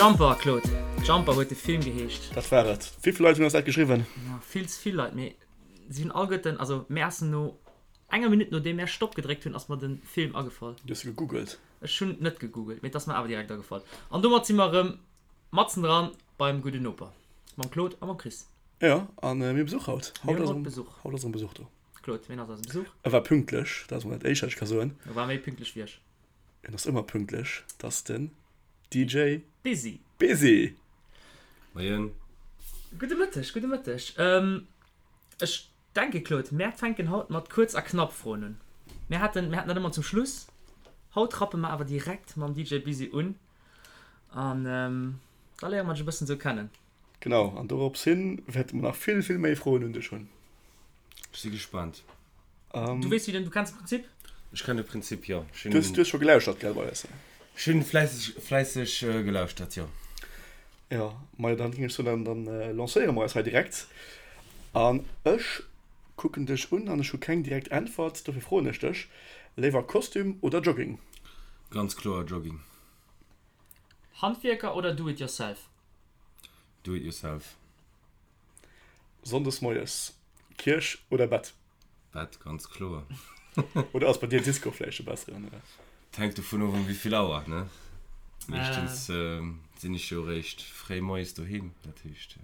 Jumper, Claude. Jumper huet de Film geheescht. Dat war et. Wéi vill Leit hunn eis dat geschriwwen? Ja, vill ze vill Leit, mee si hunn alleguerten, also mär ass no enger Minutt nodeem mär Stopp gedréckt hunn, ass mer de Film agefall. Du hues gegoogelt? Ech hunn net gegoogelt, mee et ass mer awer direkt agefall. An domat si mer erëm matzen dran beim gudden Noper, mam Claude a mam Chris. Jo, a mir hu Besuch haut. Mir hunn haut Besuch. Haut ass erëm Besuch do. Claude, wien ass eise Besuch? E war pünktlech, dat ass mol dat éischt, wat ech ka soen. E war méi pünktlech wéi ech. En ass ëmmer pünktlech, dat ass den DJ Busy. Busy! Moien. Gudde Mëtteg, gudde Mëtteg. Ech denke Claude, mär fänken haut mat kuerz a knapp Froen un. Mär haten, mär haten dat ëmmer zum Schluss. Haut rappe mer awer direkt mam DJ Busy un an da léiere mer dech e bëssen esou kennen. Genau, an dorops hin wäerte mer nach vill, vill méi Froen un dech hunn. Ech si gespaant. Du weess wéi den, du kenns de Prinzip? Ech kennen de Prinzip, jo. Ech hunn. Du hues scho gelauschtert, gell, bei eis? Ech hunn fläisseg, fläisseg gelauschtert, jo. Jo, majo, dann géing ech soen, dann lancéiere mer eis hei direkt. An ech kucken dech un an ech hu keng direkt Äntwert, dofir froen ech dech, Léiwer Kostüm oder Jogging? Ganz kloer Jogging. Handwierker oder Do it yourself? Do it yourself. Sonndes moies, Kierch oder Bett? Bett, ganz kloer. Oder ass bei dir Disco vläicht e besseren? Et hänkt dovun of, um wéivill Auer, ne? Meeschtens sinn ech jo eréischt fréi moies doheem, dat heescht.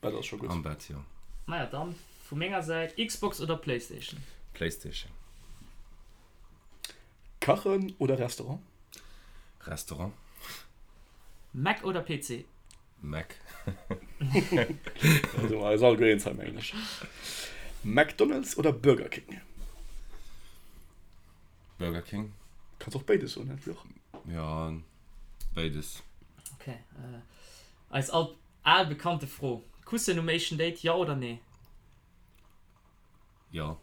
Bett ass scho gutt. Am Bett, jo. Maja, dann vu menger Säit, Xbox oder Playstation? Playstation. Kachen oder Restaurant? Restaurant. Mac oder PC? Mac. Da si mer eis alleguer eens hei, mengen ech. McDonald's oder Burger King? Burger King. Kanns och béides soen, net Fluch. Ja, béides. Ok. Eis all al bekannte Fro, Kussen um éischten Date, jo oder nee? Jo.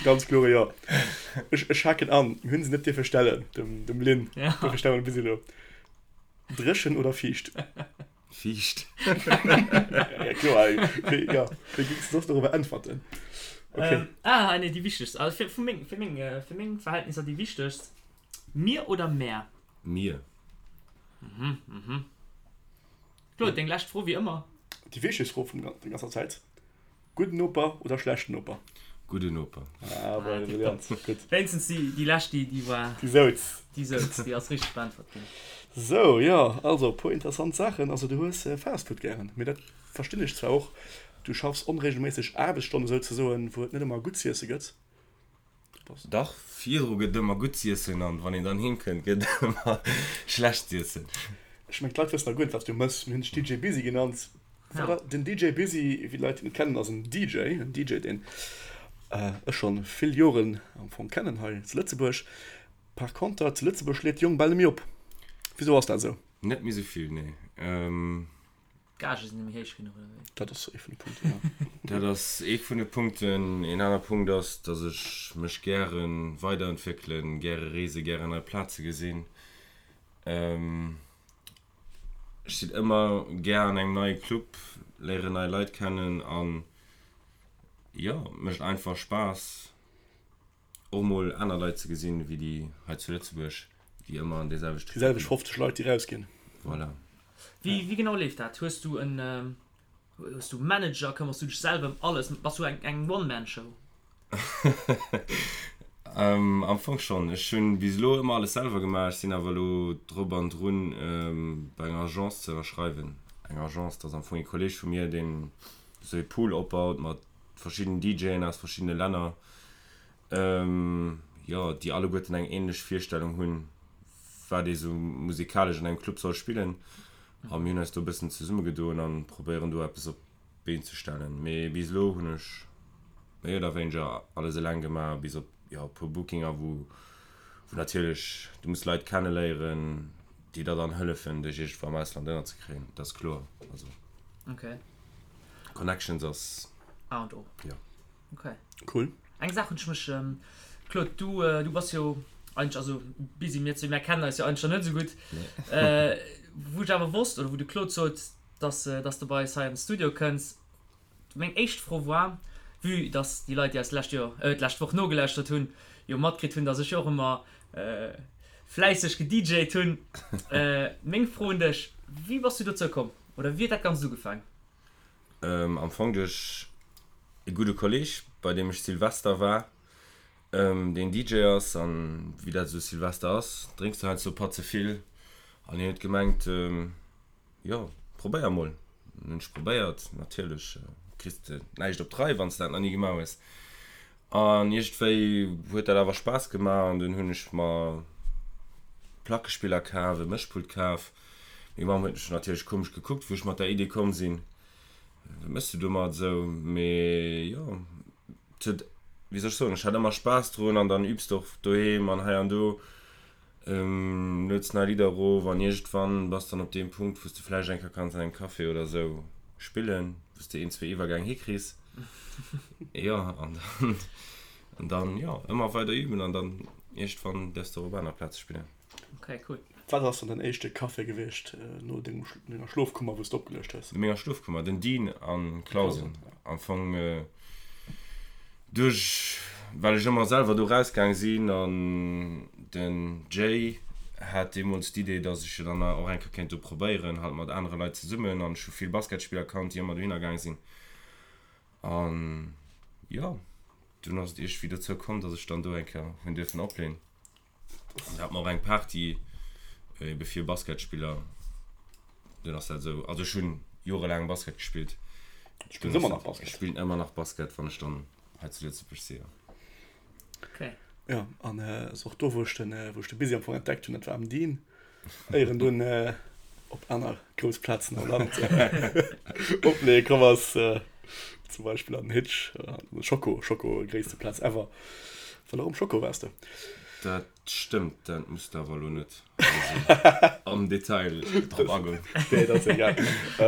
Ganz klore Jo. Ech, ech haken an, mir hunn se net dierfe stellen, dem, dem Lynn. Ja. Dofir stelle mer bis elo. Dréchen oder fiicht? Fiicht. Ja, kloer. Wéi, ja, wéi géings de soss dorobber äntwerten? Okay. Ähm, ah, nee, déi wichtegst, also fir, vu meng, fir meng, fir meng Verhältnisser déi wichtegst, Mir oder mär? Mir. Mhm, mhm. Claude, deng lescht Fro wéi ëmmer. Déi wichtegst Fro vun der ganzer Zäit, Gudden Noper oder schlechten Noper? Gudden Noper. Ah, bon, brillant. Gutt. Wéinstens déi, déi lescht, déi, déi war. Déi souz. Déi souz, déi ass richteg beäntwert ginn. Sou, jo, also e puer interessant Saachen. Also du hues Fastfood gären, mee dat verstinn ech zwar och. Du schaffs onregelméisseg Aarbechtsstonnen souzesoen, wou et net ëmmer gutt z'iesse gëtt. Dach, virdru gëtt ëmmer gutt z'iessen an wann een dann heem kënnt, gëtt ëmmer schlecht z'iessen. Ech mengen d'Leit wëssen nach guer net wat s du mëss. Mir hunn dech DJ Busy genannt. Voilà, den DJ Busy, wéi d'Leit en kennen, ass en DJ, en DJ deen ech schonn vill Joren am Fong kennen hei zu Lëtzebuerg. Par conter zu Lëtzebuerg schléit de Jong bal net méi op. Wisou ass dat esou? Net méi esou vill, nee. D'Gage sinn net méi héich genuch, oder wéi? Dat ass ee vun de Punkten, jo. Dat ass ee vun de Punkten. Een aner Punkt ass, dass ech mech gäre weiderentwéckelen, gäre reesen, gären nei Plaze gesinn. Ech sinn ëmmer gär an engem neie Club, léieren nei Leit kennen an jo, et mécht einfach Spaass. Och mol aner Leit ze gesinn, wéi déi hei zu Lëtzebuerg, déi ëmmer an déi selwecht Déi selwecht 50 Leit, déi rausginn. Voilà. Wéi, wéi genau leeft dat? Hues du en, hues du Manager? Këmmers du dech selwer ëm alles? Bass du eng, eng One-Man-Show? Am Fong schonn. Ech hunn bis elo ëmmer alles selwer gemaach. Ech sinn awer elo drop an drun, bei enger Agence ze ënnerschreiwen. Eng Agence, dat ass am Fong ee Kolleeg vu mir, deen esou ee Pool opbaut mat verschiddenen DJen aus verschiddene Länner, jo, déi alleguerten eng ähnlech Virstellung hunn, wat ee sou musikalesch an engem Club soll spillen. A mir hunn eis do e bëssen zesummegedoen a probéieren do eppes op d'Been ze stellen. Mee bis elo hunn ech méi oder wéineger alles eleng gemaach, bis op, jo, e puer Bookinger, wou, wou natierlech du muss Leit kenneléieren, déi der dann hëllefen, dech iergendwou am Ausland ënnerzekréien, dat ass kloer. Also. Okay. Connections ass A und O. Jo. Okay. Cool. Eng Saach hunn ech mech, Claude, du, du bass jo eigentlech, also busy, mir zwee, mir kennen eis jo eigentlech nach net esou gutt. Nee. Wou ech awer wosst, oder wou de Claude sot, dass, dass de bei eis hei an de Studio kënns, meng éischt Fro war, vue dass déi Leit, déi eis d'lescht Joer, d'lescht Woch nogelauschtert hunn, jo matkritt hunn, dass ech jo och ëmmer. fläisseg gedjt hunn. Meng Fro un dech, Wéi bass du dozou komm oder wéi huet dat Ganzt ugefaang? Am Fong duerch e gudde Kolleg, bei deem ech Silvester war, deen DJ ass. An wéi dat esou Silvester ass, drénks du heiansdo e Patt ze vill. An hien huet gemengt, Jo, probéier mol. Dann hunn ech probéiert. Natierlech kriss de näischt op d'Rei, wann s de dat nach ni gemaach hues. An iergendwéi huet dat awer Spaass gemaach an dunn hunn ech mer Plackespiller kaf, e Mëschpult kaf. Meng Mamm huet mech natierlech komesch gekuckt, wou ech mat der Idee komm sinn, Wat méchs du domat esou? Mee jo, et huet, wéi soll ech soen, ech hat ëmmer Spaass drun an dann übs de och doheem an hei an do. Lueds nei Lidder erof an iergendwann bass dann op deem Punkt, wou s de vläicht eng Kéier kanns an engem Café oder esou spillen, wou s de een, zwee Iwwergäng hikriss. Jo, an dann, an dann, jo, ëmmer weider üben an dann iergendwann däerfs de och op aner Plaze spillen. Okay, cool. Wat ass dann däin éischte Café gewiescht no denger Schlofkummer, wou s de opgeluecht hues? No menger Schlofkummer? Den Dean an Clausen. Am Fong. Duerch well ech ëmmer selwer do rausgaang sinn an den Jay hat deemools d'Idee, dass ech jo dann och eng Kéier kéint do probéieren, halt mat anere Leit zesummen an ech hu vill Basketspiller kannt, déi ëmmer dohinner gaang sinn an jo, dunn ass et iergendwéi dozou komm, dass ech dann do eng Kéier hunn dierfen opleen. An da hat mer och eng Party ebe fir Basketspiller. Dunn ass dat esou, also ech hunn jorelaang Basket gespillt. Du spills ëmmer nach Basket? Ech spillen ëmmer nach Basket, wann ech dann hei zu Lëtzebuerg si, jo. Okay. Jo, an ass och do, wou ech den, wou ech de Busy am Fong entdeckt hunn, dat war am Dean, éier en dunn op aner grouss Plazen am Land opleeë komm ass, zum Beispill an den Hitch, an den Schoko, Schoko, gréisste Plaz ever. Well och um Schoko waars de. Dat stëmmt, dat muss de awer elo net am Detail drop agoen. Nee, dat ass egal.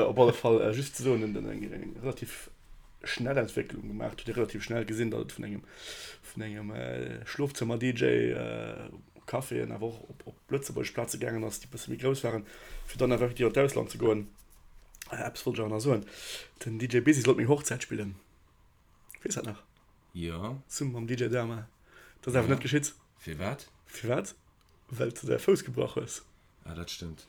Op alle Fall, just ze soen, en huet eng relativ schnell Entwécklung gemaach, huet ee relativ schnell gesinn, datt et vun engem, vun engem Schlofzëmmer-DJ, Caféen, awer och op, op lëtzebuergesch Plaze gaangen ass, déi e bësse méi grouss waren, fir dann awer effektiv an d'Ausland ze goen. Eppes wollt ech awer nach soen, Den DJ Busy sollt meng Hochzäit spillen. Weess dat nach? Jo. Zesumme mam DJ Dama. Dat ass awer net geschitt. Firwat? Firwat? Well s de däi Fouss gebrach hues. Ah, dat stëmmt.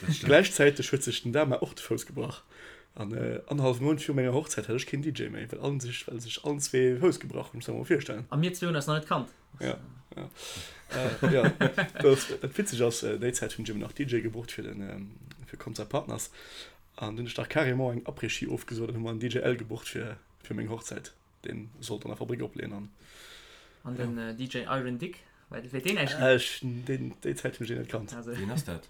Dat stëmmt. Gläichzäiteg huet sech den Dama och de Fouss gebrach. An annerhallwe Mount viru menger Hochzäit hat ech keen DJ méi, well allen sech, well sech allen zwee de Fouss gebrach hunn. Muss der mol virstellen. A mir zwee hunn eis nach net kannt. Ja, ja. Äh, ja. Dat, dat witzeg ass, déi Zäit hunn ech eben nach DJ gebucht fir den, fir Concert Partners. An dunn hunn ech dach carrément eng Après-Ski ofgesot an hu mer en DJ L gebucht fir, fir meng Hochzäit. Deen sollt an der Fabrik opleeën an. An den DJ Iron Dick, wat huet deen eigentlich gemaach? Ech, deen, déi Zäit hunn ech deen net kannt. Also, Wien ass dat?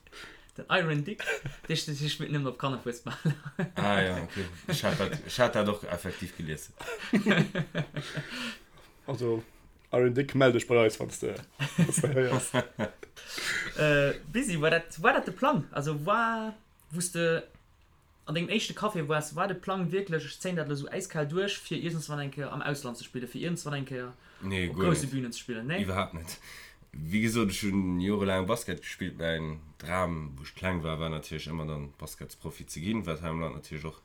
Den Iron Dick, dee spillt nëmmen op Kannerfuesbal. Ah ja, okay. Ech hat dat, ech hat dat och effektiv gelies. Also, Iron Dick, mell dech bei eis, wann s de, wann s de héiers. Busy, war dat, war dat de Plang? Also war, wou s de an dengem éischte Café waars, war de Plang wierklech, ech zéien dat elo sou äiskal duerch, fir iergendswann eng Kéier am Ausland ze spillen, fir iergendswann eng Kéier Nee, op guer grousse net. Bünen ze spillen? Nee? Iwwerhaapt net. Wéi gesot, ech hunn jorelaang Basket gespillt. Mäin Dram, wou ech kleng war, war natierlech ëmmer dann Basketsprofi ze ginn, wat hei am Land natierlech och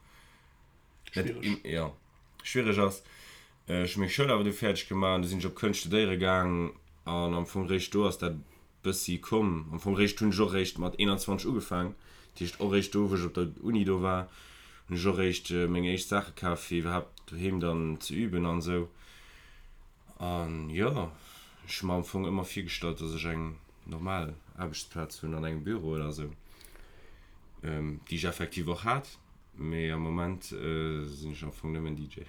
net Schwiereg. jo, schwiereg ass. Ech hu meng Schoul awer du fäerdeg gemaach an du sinn ech op Kënscht studéiere gaang an am Fong réischt do ass dat bëssi komm. Am Fong réischt hunn ech och réischt mat 21 ugefaang, dat heescht och réischt do wou ech op der Uni do war, hunn ech och réischt meng éischt Saache kaf fir iwwerhaapt doheem dann ze üben an esou. An jo, ech hu mer am Fong ëmmer virgestallt, dass ech eng normal Aarbechtsplaz hunn an engem Büro oder esou, déi ech effektiv och hat, mee am Moment sinn ech am Fong nëmmen DJ.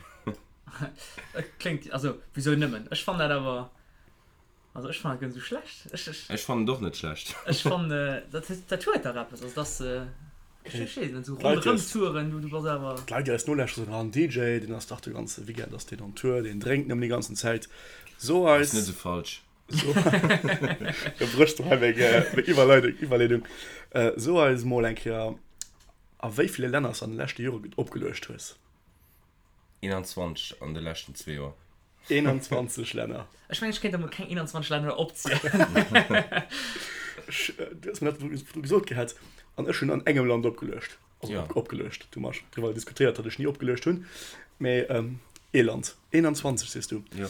Et kléngt, also wisou nëmmen? Ech fannen dat awer, also ech fannen dat guer net esou schlecht. Ech, ech. Ech fannen et och net schlecht. Ech fannen, dat huet, dat huet dach eppes, also dass, ech weess net, esou ronderëm-touren, du, du bass awer. D'Leit déi eis nolauschteren soen, ah en DJ, deen ass dach de ganze Weekend ass deen on Tour, deen drénkt nëmmen déi ganzen Zäit. So eis. Ass net esou falsch. So, da bréchs du hei meng, meng Iwwerleidung, Iwwerleedung. So eis mol eng Kéier, a wéi ville Länner s de an de leschte Jore opgeluecht hues. 21 an de leschten zwee Joer. 21 Länner. Ech mengen, ech kéint der mol keng 21 Länner opzielen. Ech, du hues mir dat virdru gesot gehat, an ech hunn an engem Land opgeluecht. Also Ja. op, opgeluecht. Du hu mer driwwer diskutéiert, datt ech ni opgeluecht hunn. Mee ee Land. 21 sees du. Jo.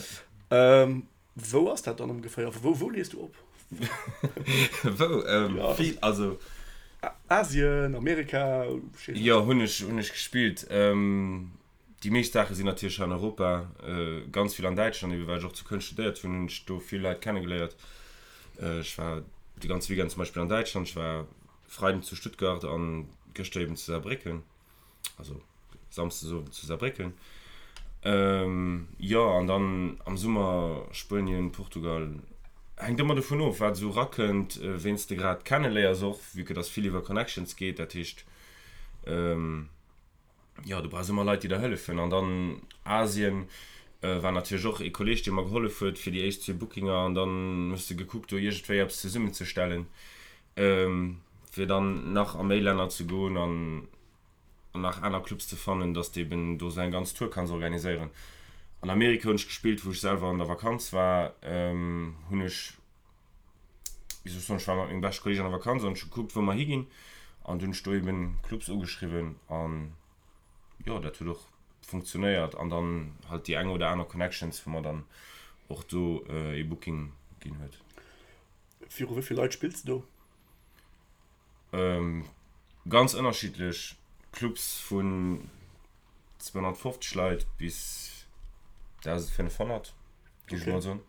Wou ass dat dann ongeféier? Wou, wou lees du op? Wou? Vill, also. Asien, Amerika, Jo, hunn ech, hunn ech gespillt. Déi meescht Saache sinn natierlech hei an Europa, ganz vill an Däitschland, ebe well ech och zu Köln studéiert hunn, hunn ech do vill Leit kennegeléiert. Ech war de ganze Weekend zum Beispill an Däitschland, ech war Freiden zu Stuttgart an gëschter eben zu Saarbrécken, also Samsdes Owend zu Saarbrécken. Jo, an dann am Summer Spuenien, Portugal, hänkt ëmmer dovun of, wat esou erakënnt, ween s de grad kenneléiers och, vue que dass vill iwwer Connections geet, dat heescht, jo, du brauchs ëmmer Leit, déi der hëllefen. An dann Asien war natierlech och ee Kolleeg, dee mer gehollef huet fir déi éischt zwee Bookinger. An dann hues de gekuckt, do iergendwéi eppes zesummenzestellen, fir dann nach a méi Länner ze goen an nach aner Clubs ze fannen, dass de eben do sou eng ganz Tour kanns organiséieren. An Amerika hunn ech gespillt, wou ech selwer an der Vakanz war, hunn ech wéi soll ech soen, ech war mat mengem beschte Kolleeg an der Vakanz an ech hu gekuckt, wou mer higinn an dunn hunn ech do eben Clubs ugeschriwwen an jo, dat huet och funktionéiert an dann halt déi eng oder aner Connections, wou mer dann och do ee Booking ginn huet. Viru wéi vill Leit spills de do? Ganz ënnerschiddlech, Clubs vun 250 Leit bis 1.500, géif ech mol soen.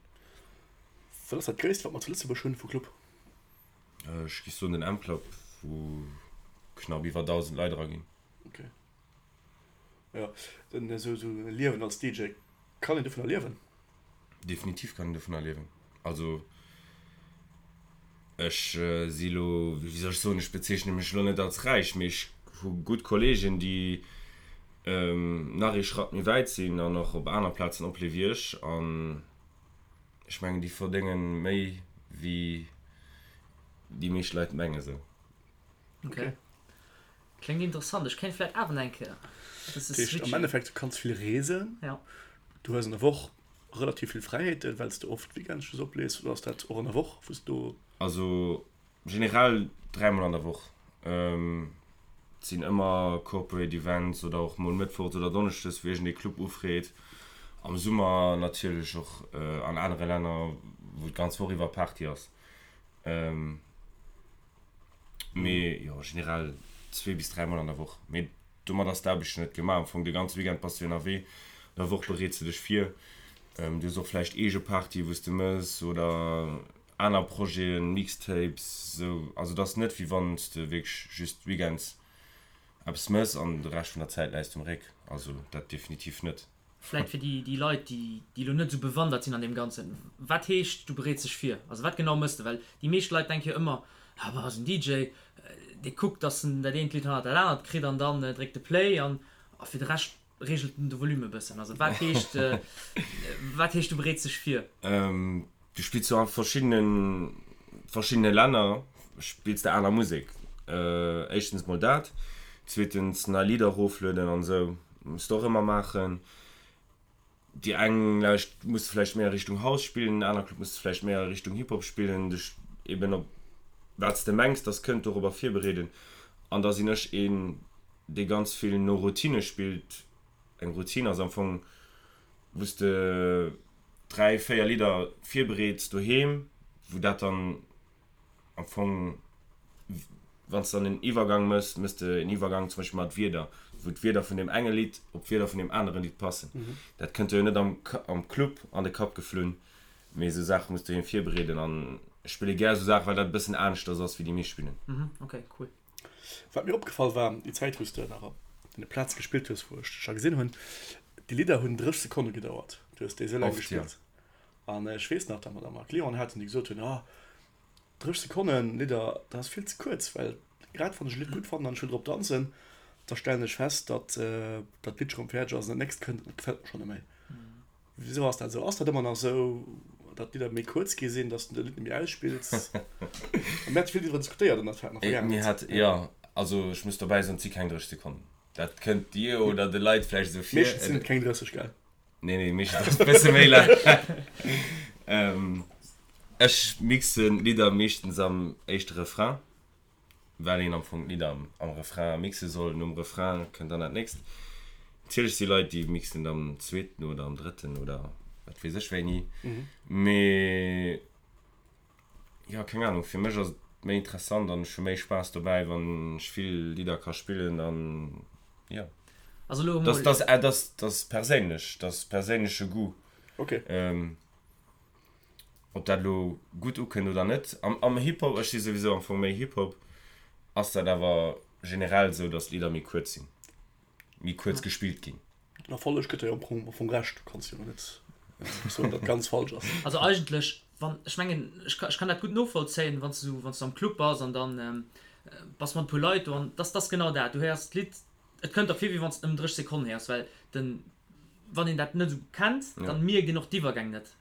Wat ass dat gréisst wat mer zu Lëtzebuerg hunn vu Club? Ech géif soen den M-Club, wou knapp iwwer 1.000 Leit era ginn. Ok. Jo, den esou esou e Liewen als DJ, kann een dovunner liewen? Definitiv kann een dovunner liewen. Also ech si lo, wéi soll ech soen, ech bezeechne mech lo net als räich, mee ech hu gutt Kolleegen, déi nach ee Schratt méi wäit sinn an och op aner Plazen oplee wéi ech an Ech mengen déi verdéngen méi wéi déi meescht Leit mengen sou. Ok. Kléngt interessant. Ech kéint vläit awer nach eng Kéier e bësse Dat heescht am switchen. Endeffekt, du kanns vill reesen, Ja. du hues an der Woch relativ vill Fräiheeten, well s de oft Weekends just oplees, oder ass dat och an der Woch, wou s du. Also Generell dräimol an der Woch. Et sinn ëmmer Corporate Events oder och mol mëttwochs oder donneschdes, wou iergendee Club ufreet. Am Summer natierlech och an anere Länner, wou d'ganz Woch iwwer Party ass. Mee jo, generell zwee bis dräimol an der Woch. Mee Domat ass d'Aarbecht jo net gemaach. Am Fong de ganze Weekend bass du ënnerwee, an der Woch bereets de dech vir. Du hues och vläicht eege Partye wou s de mëss oder aner Projeten, Mixtapes, esou. Also et ass net wéi wann s de wierklech just weekends eppes mëss an de Rescht vun der Zäit läis de um Réck. Also dat definitiv net. Vläit fir déi Leit, déi elo net esou bewandert sinn an deem Ganzen, Wat heescht, du bereets dech vir? Also wat genau mëss de? Well déi meescht Leit denke jo ëmmer, Ah bah, ass en DJ, dee kuckt, datt en dat eent Lidd hannert dat anert kritt an dann dréckt e Play an a fir de Rescht reegelt en de Volume e bëssen. Also wat heescht, wat heescht du bereets dech vir? Du spills jo a verschiddene verschiddene Länner spills de aner Musek. Éischtens mol dat, zweetens nei Lidder eroflueden an esou muss de och ëmmer maachen. Déi eng Lauscht muss de vläicht méi a Richtung House spillen, en aner Club muss de vläicht méi a Richtung Hip Hop spillen, dech eben op wat s de mengs dass kënnt dorobber virbereeden. An da sinn ech een dee ganz vill no Routine spillt. Eng Routine ass am Fong wou s de 3, 4 Lidder virbereets doheem, wou dat dann am Fong, wann s de dann en Iwwergang mëss, mëss de en Iwwergang zum Beispill mat Wierder, wou d'Wierder vun deem enge Lidd op d'Wierder vun deem anere Lidd passen. Dat kënnt der jo net am am Club an de Kapp geflunn, mee esou Saache muss doheem virbereeden an ech spille gär esou Saachen, well dat e bëssen aneschters ass wéi déi meescht spillen. Ok, cool. Wat mir opgefall war, déi Zäit wou s de nach op deene Plaze gespillt hues, wou ech dech scho gesinn hunn, déi Lidder hunn 30 Sekonne gedauert. Du hues déi esou laang gespillt. An ech weess nach, datt mer da mol Clienten haten, déi gesot hunn, ah, 30 Sekonnen Lidder, dat ass vill ze kuerz, well grad wann ech e Lidd gutt fannen an ech wëll drop danzen, da stellen ech fest, datt dat Lidd schonn fäerdeg ass an dat nächst kënnt an dat gefält mer schonn net méi. Wisou ass dat esou? Ass dat ëmmer nach esou, datt d'Lidder méi kuerz gi sinn, datt s de de Lidd net méi ausspills? Mir hate vill driwwer diskutéiert an der Vergaangenheet. Jo, also ech muss dobäi soen, et si keng 30 Sekonnen. Dat kënnt dir oder de Leit vläicht esou vir. Meeschtens sinn et keng 30, gell? Nee, nee, meeschtens ass et e bësse méi laang. Ech mixen d'Lidder meeschtens am éischte Refrain. Well een am Fong d'Lidder am Refrain mixe soll. Nom Refrain kënnt dann dat nächst. Natierlech si Leit, déi mixen et am zweeten oder am drëtten oder wat weess ech wéini. Mee Jo, keng Ahnung, fir mech ass et méi interessant an ech hu méi Spaass dobäi, wann ech vill Lidder ka spillen an jo. Also elo emol. Dat ass, dat ass perséinlech, dat ass perséinleche Goût. Ok. Ob dat elo gutt ukënnt oder net. Am, am Hip-Hop, ech si souwisou am Fong méi Hip-Hop, ass dat awer generell esou, datt d'Lidder méi kuerz sinn, méi kuerz gespillt ginn. Den Erfolleg gëtt der jo am Fong Recht, du kanns jo net soen, datt ganz falsch ass. Also eigentlech, wann, ech mengen, ech ka, ech kann dat gutt novollzéien, wann s du, wann s du am Club bass an dann bass mat e puer Leit do an dass dass genau dat, du héiers d'Lidd, et kënnt der vir wéi wann s de ëm 30 Sekonnen héiers, well den, wann een dat net esou kennt, dann mierkt een och d'Iwwergäng net.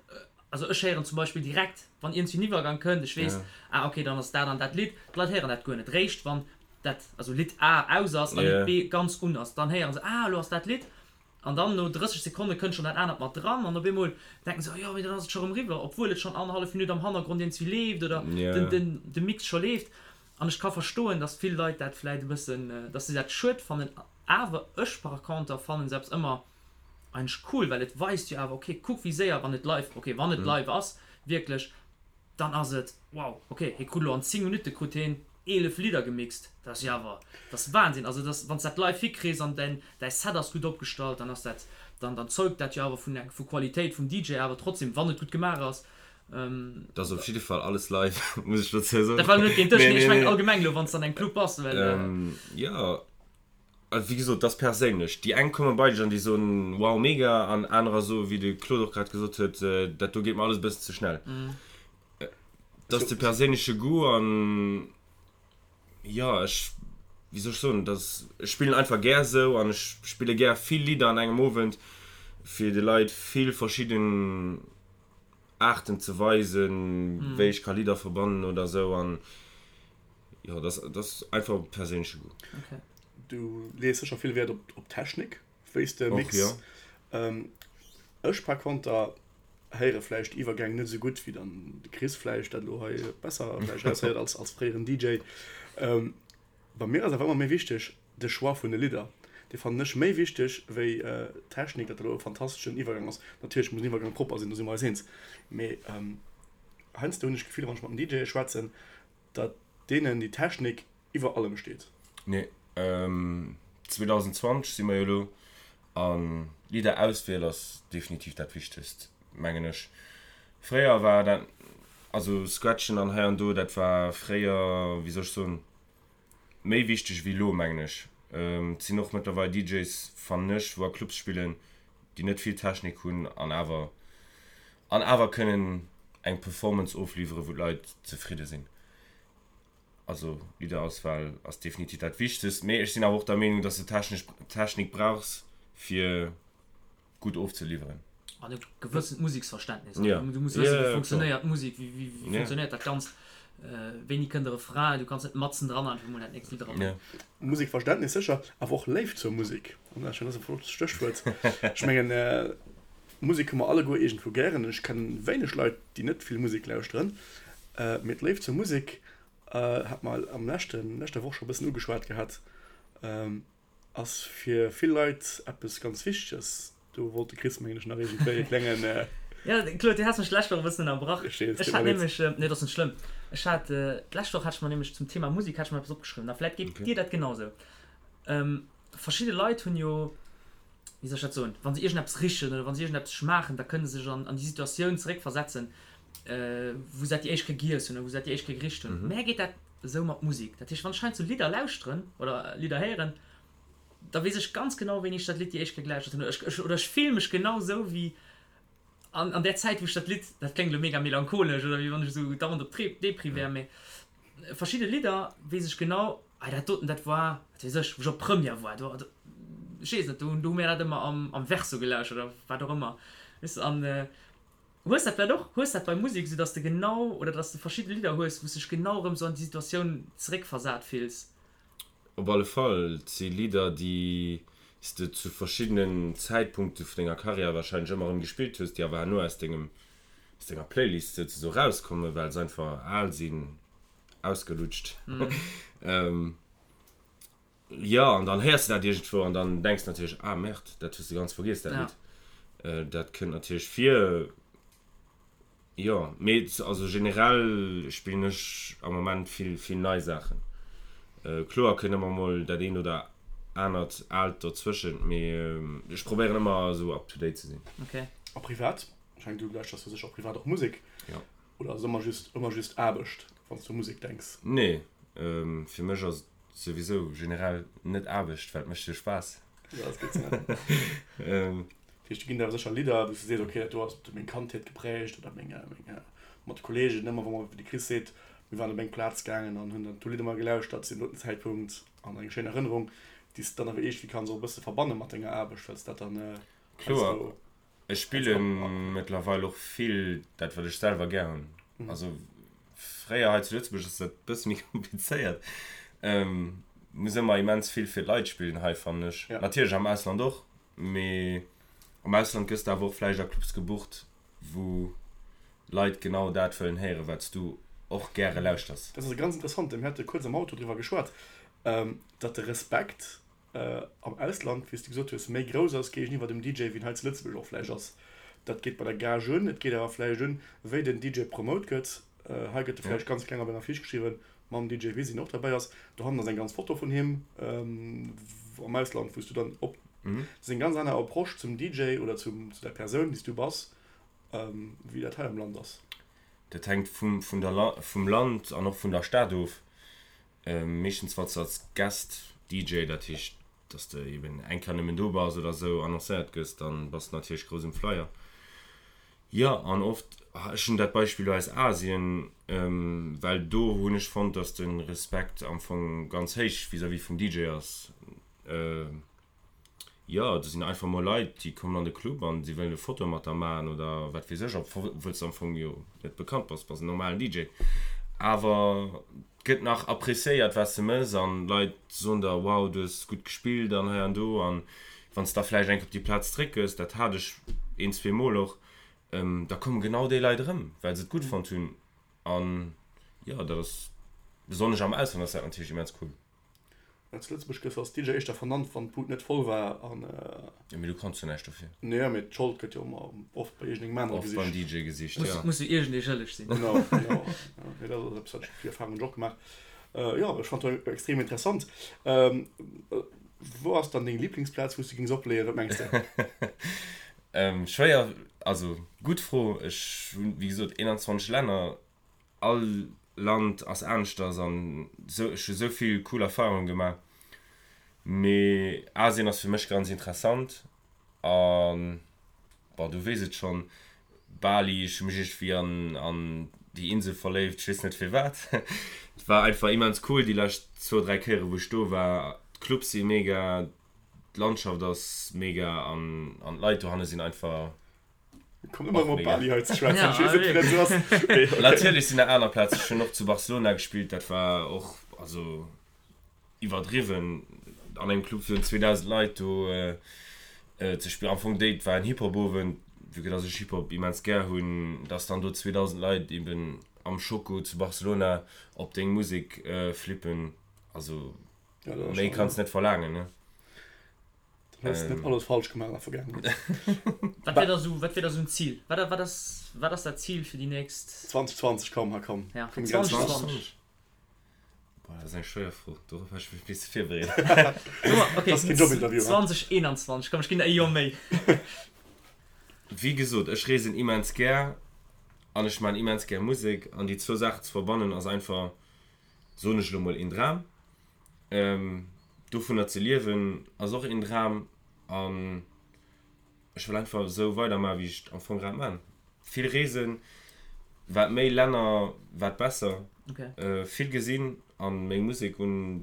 Also ech héieren zum Beispill direkt, wann iergendwéi en Iwwergang kënnt, ech weess, ah ok, dann ass dat an dat Lidd. D'Leit héieren dat guer net. Réischt wann dat, also Lidd A aus ass a Lidd B ganz un ass, dann héiere se, ah elo ass dat Lidd. An dann no 30 Sekonne kënnt schonn dat anert mat dran an op eemol denken se, oh jo, mee dann ass et scho rëm eriwwer, obwuel et schonn annerhallef Minutt am Hannergrond iergendwéi leeft oder den, de Mix scho leeft. An ech ka verstoen, dass vill Leit dat vläit e bëssen, dass se dat schued fannen. Awer ech par conter fannen se eppes ëmmer eigentlech cool, well et weist jo awer, ok, kuck wéi séier, wann et live, ok, wann et live ass wierklech, dann ass et wow, ok, hie krut elo an 10 Minutte krut hien 11 Lidder gemixt, dat ass jo awer, dat ass Wahnsinn. Also dat ass, wann s dat live hikriss an däin däi Set ass gutt opgestallt, dann ass dat, dann dann zeugt dat jo awer vun eng vu Qualitéit vum DJ awer trotzdem, wann et gutt gemaach ass. Dat ass op jidde Fall alles live, muss ech dozou soen. Dat war elo net géint dech, nee, ech mengen allgemeng elo, wann s de an engem Club bass, well. Jo. Wéi gesot, dat ass perséinlech. Déi eng komme bei dech an déi soen, wow, mega, an anerer soen, wéi de Claude och grad gesot huet, dat do geet mer alles e bëssen ze schnell. Dat ass de perséinleche Goût an jo, ech, wéi soll ech soen, dat ass, ech spillen einfach gär esou an ech spille gär vill Lidder an engem Owend, fir de Leit vill verschidden Aarten ze weisen, wéi ech ka Lidder verbannen oder esou an. Jo, dat ass einfach e perséinleche Goût. Okay. Du lees sécher vill Wäert op, op Technik, wéi s de mix. Jo. Ähm, ech par konter héiere vläicht d'Iwwergäng net esou gutt wéi dann de Chris vläicht dat elo hei besser vläicht raushéiert als, als fréieren DJ. Ähm, bei mir ass awer ëmmer méi wichteg de Choix vun de Lidder. Dee fannen ech méi wichteg wéi d'Technik, datt elo e fantasteschen Iwwergang ass. Natierlech muss en Iwwergang propper sinn, do si mer eis eens. Mee ähm, heiansdo hunn ech d'Gefill, wann ech mat den DJe schwätzen, Datt deenen déi Technik iwwer allem steet. Nee, 2020 si mer jo elo, an Lidderauswiel ass definitiv dat Wichtegst, mengen ech. Fréier war dat, also Scratchen an hei an do, dat war fréier, wéi soll ech soen, méi wichteg wéi elo, mengen ech. Et sinn och mëttlerweil DJs, fannen ech, wou a Clubs spillen, déi net vill Technik hunn an awer an awer kënnen eng Performance ofliwweren, wou d'Leit zefridde sinn. Also Lidderauswahl ass definitiv dat Wichtegst, mee ech sinn awer och der Meenung, dass de technesch Technik brauchs fir gutt ofzeliwweren. An e gewëssent Museksverständnis. Ja. Du muss wëssen, wéi funktionéiert d'Musek, wéi wéi funktionéiert dat Ganzt, wéini kënnt de Refrain, du kanns net matzen dran einfach emol dat nächst Lidd erabréngen. Musekverständnis sécher, awer och Léift zur Musek. An dat ass e flott Stéchwuert. Ech mengen, Musek hu mer alleguer iergendwou gären. Ech kennen wéineg Leit, déi net vill Musek lauschteren. Mee d'Léift zur Musek hat mer am leschten, leschter Woch scho e bëssen ugeschwat gehat, ass fir vill Leit eppes ganz Wichteges. Do wollt de Chris, mengen ech, nach iergendwéi e klengen. Jo, Claude, du has mech d'lescht Woch e bëssen ënnerbrach. Ech weess, Ech tut hat mer leed. nämlech, nee, dat ass net schlëmm. Ech hat, d'lescht Woch hat ech mer nämlech zum Thema Musek hat ech mer eppes opgeschriwwen a vläit geet dir dat genausou. Verschidde Leit hunn jo, wéi soll ech dat soen, wa se iergendeppes richen oder wa se iergendeppes schmaachen, da kënne se sech an déi Situatioun zeréckversetzen, wou se dat déi éischt Kéier giess hunn oder wou se dat déi éischt Kéier gericht hunn. Mär geet dat esou mat Musek. Dat heescht, wann ech heiansdo Lidder lauschteren oder Lidder héieren, da weess ech ganz genau, wéini ech dat Lidd déi éischt Kéier gelauschtert hunn. Oder ech, oder ech fille mech genau esou wéi an, an där Zäit, wou ech dat Lidd, dat kléngt elo mega melancholesch oder wéi wann ech esou dauernd op Depri wär, mee verschidde Lidder weess ech genau, ah dat doten, dat war, wat weess ech, wou ech op Première war, do, do, ech weess net, do, do hu mir dat ëmmer am, am Verso gelauschtert oder wat och ëmmer, weess de, an hues dat vläicht och, hues dat bei Musek esou, dass de genau, oder dass de verschidde Lidder hues, wou s dech genau erëm esou an déi Situatioun zeréckversat fills? Op alle Fall, et si Lidder, déi s de zu verschiddenen Zäitpunkte vun denger Karriär warscheinlech ëmmer erëm gespillt hues, déi awer herno aus dengem, aus denger Playlist souzesoe rauskommen, well se einfach al sinn, ausgelutscht. Jo, an dann héiers de dat iergendwou an dann denks de natierlech, ah merde, dat hues de ganz vergiess, dat Lidd. Dat kënnt natierlech vir. Jo, mee also generell spillen ech am Moment vill vill nei Saachen. Kloer kënnt ëmmer mol dat eent oder anert aalt dozwëschent, mee ech probéieren ëmmer esou up to date ze sinn. Ok. A privat? Ech mengen du lauschters jo sécher och privat och Musek? Jo. Oder ass et ëmmer just ëmmer just Aarbecht wann s du u Musek denks? Nee, fir mech ass et souwisou generell net Aarbecht, well et mécht jo Spaass. Jo, dat ass gutt ze héieren. Dat heescht, do ginn der awer sécher Lidder, wou s du sees, ok, dat do ass meng Kandheet geprägt oder meng, meng mat de Kolleegen ëmmer, wa mer, wéi de Chris seet, mir waren op eng Plaz gaangen an hunn dann do Lidder ëmmer gelauschtert zu deem doten Zäitpunkt an eng schéin Erënnerung, déi s de dann awer iergendwéi kanns och e bësse verbanne mat denger Aarbecht, well s dat dann Kloer, heiansdo. ech spille mëttlerweil och vill dat, wat ech selwer gär hunn. Also fréier hei zu Lëtzebuerg ass dat e bësse méi komplizéiert, muss ëmmer immens vill fir d'Leit spillen hei, fannen ech. Natierlech am Ausland och, Mee am Ausland gëss de awer och vläicht a Clubs gebucht, wou Leit genau dat wëllen héieren, wat s du och gäre lauschters. Dat ass e ganz interessante, mir hate kuerz am Auto driwwer geschwat, datt de Respekt am Ausland, wéi s de gesot hues, méi grouss ass géigeniwwer dem DJ, wéi en hei zu Lëtzebuerg och vläicht ass. Dat geet bei der Gage un, et geet awer vläicht un, wéi den DJ promote gëtt. Hei gëtt e vläicht ganz kleng op enger Fiche geschriwwen, mam DJ Wiz, deen och derbäi ass. Dohannen ass eng ganz Foto vun him am Ausland, wou s du dann op. Dat ass eng ganz aner Approche zum DJ oder zum, zu der Persoun, déi s du bass, wéi dat hei am Land ass. Dat hänkt vum, vun der, vum Land an och vun der Stad of. Meeschtens wann s de als Guest DJ, dat heescht, dass s de eben eng Kéier nëmmen do bass oder esou, annoncéiert gëss, dann bass de natierlech grouss um Flyer. Jo, an oft, ech hunn dat Beispill elo aus Asien, well do hunn ech fonnt, dass de Respekt am Fong ganz héich vis-à-vis vum DJ ass. Jo, do sinn einfach mol Leit, déi kommen an de Club an si wëllen e Foto mat der maachen oder wat weess ech, obwuel s de am Fong jo net bekannt bass, bass en normalen DJ. Awer et gëtt nach appreciéiert, wat s de mëss an d'Leit soen der, wow, du hues gutt gespillt an hei an do. An wann s da vläicht eng Kéier op déi Plaz zréck gëss, dat hat ech een, zwee Mol och, da komme genau déi Leit erëm, well se et gutt fonnt hunn. An jo, dat ass, besonnesch am Ausland ass dat natierlech immens cool. Zu Lëtzebuerg gëss als DJ éischter vernannt, wann d'Bud net voll war an. Jo, mee du kanns jo näischt dofir. Nee, mee d'Schold gëtt jo ëmmer oft bei iergendengem anere gesicht. Oft beim DJ gesicht, jo. Muss jo iergendee schëlleg sinn. Genau, genau. Nee, dat ass eppes, wat ech, déi Erfahrung hunn ech och gemaach. Jo, ech fand dat extrem interessant. Wou ass dann deng Lieblingsplaz, wou s du géings opleeën? Wat mengs de? Schwéier, also gutt Fro. Ech hunn, wéi gesot, 21 Länner. All Land ass aneschters an sou, ech hu sou vill cool Erfahrungen gemaach. Mee Asien ass fir mech ganz interessant an, bon du weess et schonn, Bali, ech hu mech iergendwéi an an déi Insel verléift, ech weess net firwat. Et war einfach immens cool déi lescht zwou, 3 Kéiere wou ech do war. D'Clubs si mega, d'Landschaft ass mega an an d'Leit dohanne sinn einfach. Kommt ëmmer erëm op Bali hei ze schwätzen. Ech weess net, wéi dat esou ass. Mee okay. Natierlech sinn nach aner Plazen. Ech hunn och zu Barcelona gespillt, dat war och also iwwerdriwwen an engem Club virun 2.000 Leit do ze spillen. Am Fong déi, et war en Hip-Hop-Owend, vue que dass ech Hip-Hop immens gär hunn, dass dann do 2.000 Leit eben am Choco zu Barcelona op deng Musek flippen, also méi kanns net verlaangen, ne? Dann hues de net alles falsch gemaach an der Vergaangenheet. Wat wär da sou, wat wär da sou en Zil? Wat, wat ass, wat ass dat Zil fir déi nächst. 2020, komm, ha komm. Ja, fir 2020. Boah, dat ass eng schwéier Fro, dorop hat ech mech bis virbereet. Okay, Dat ass keen Jobinterview, ha? 2021, komm, ech ginn der e Joer méi. Wéi gesot, ech reesen immens gär an ech maan immens gär Musek an déi zwou Saachen ze verbannen ass einfach, soen ech elo mol, een Dram. Dovunner ze liewen ass och een Dram an ech wëll einfach esou weidermachen, wéi ech et am Fong grad man. Vill reesen, wat méi Länner, wat besser. Vill gesinn an meng Musek un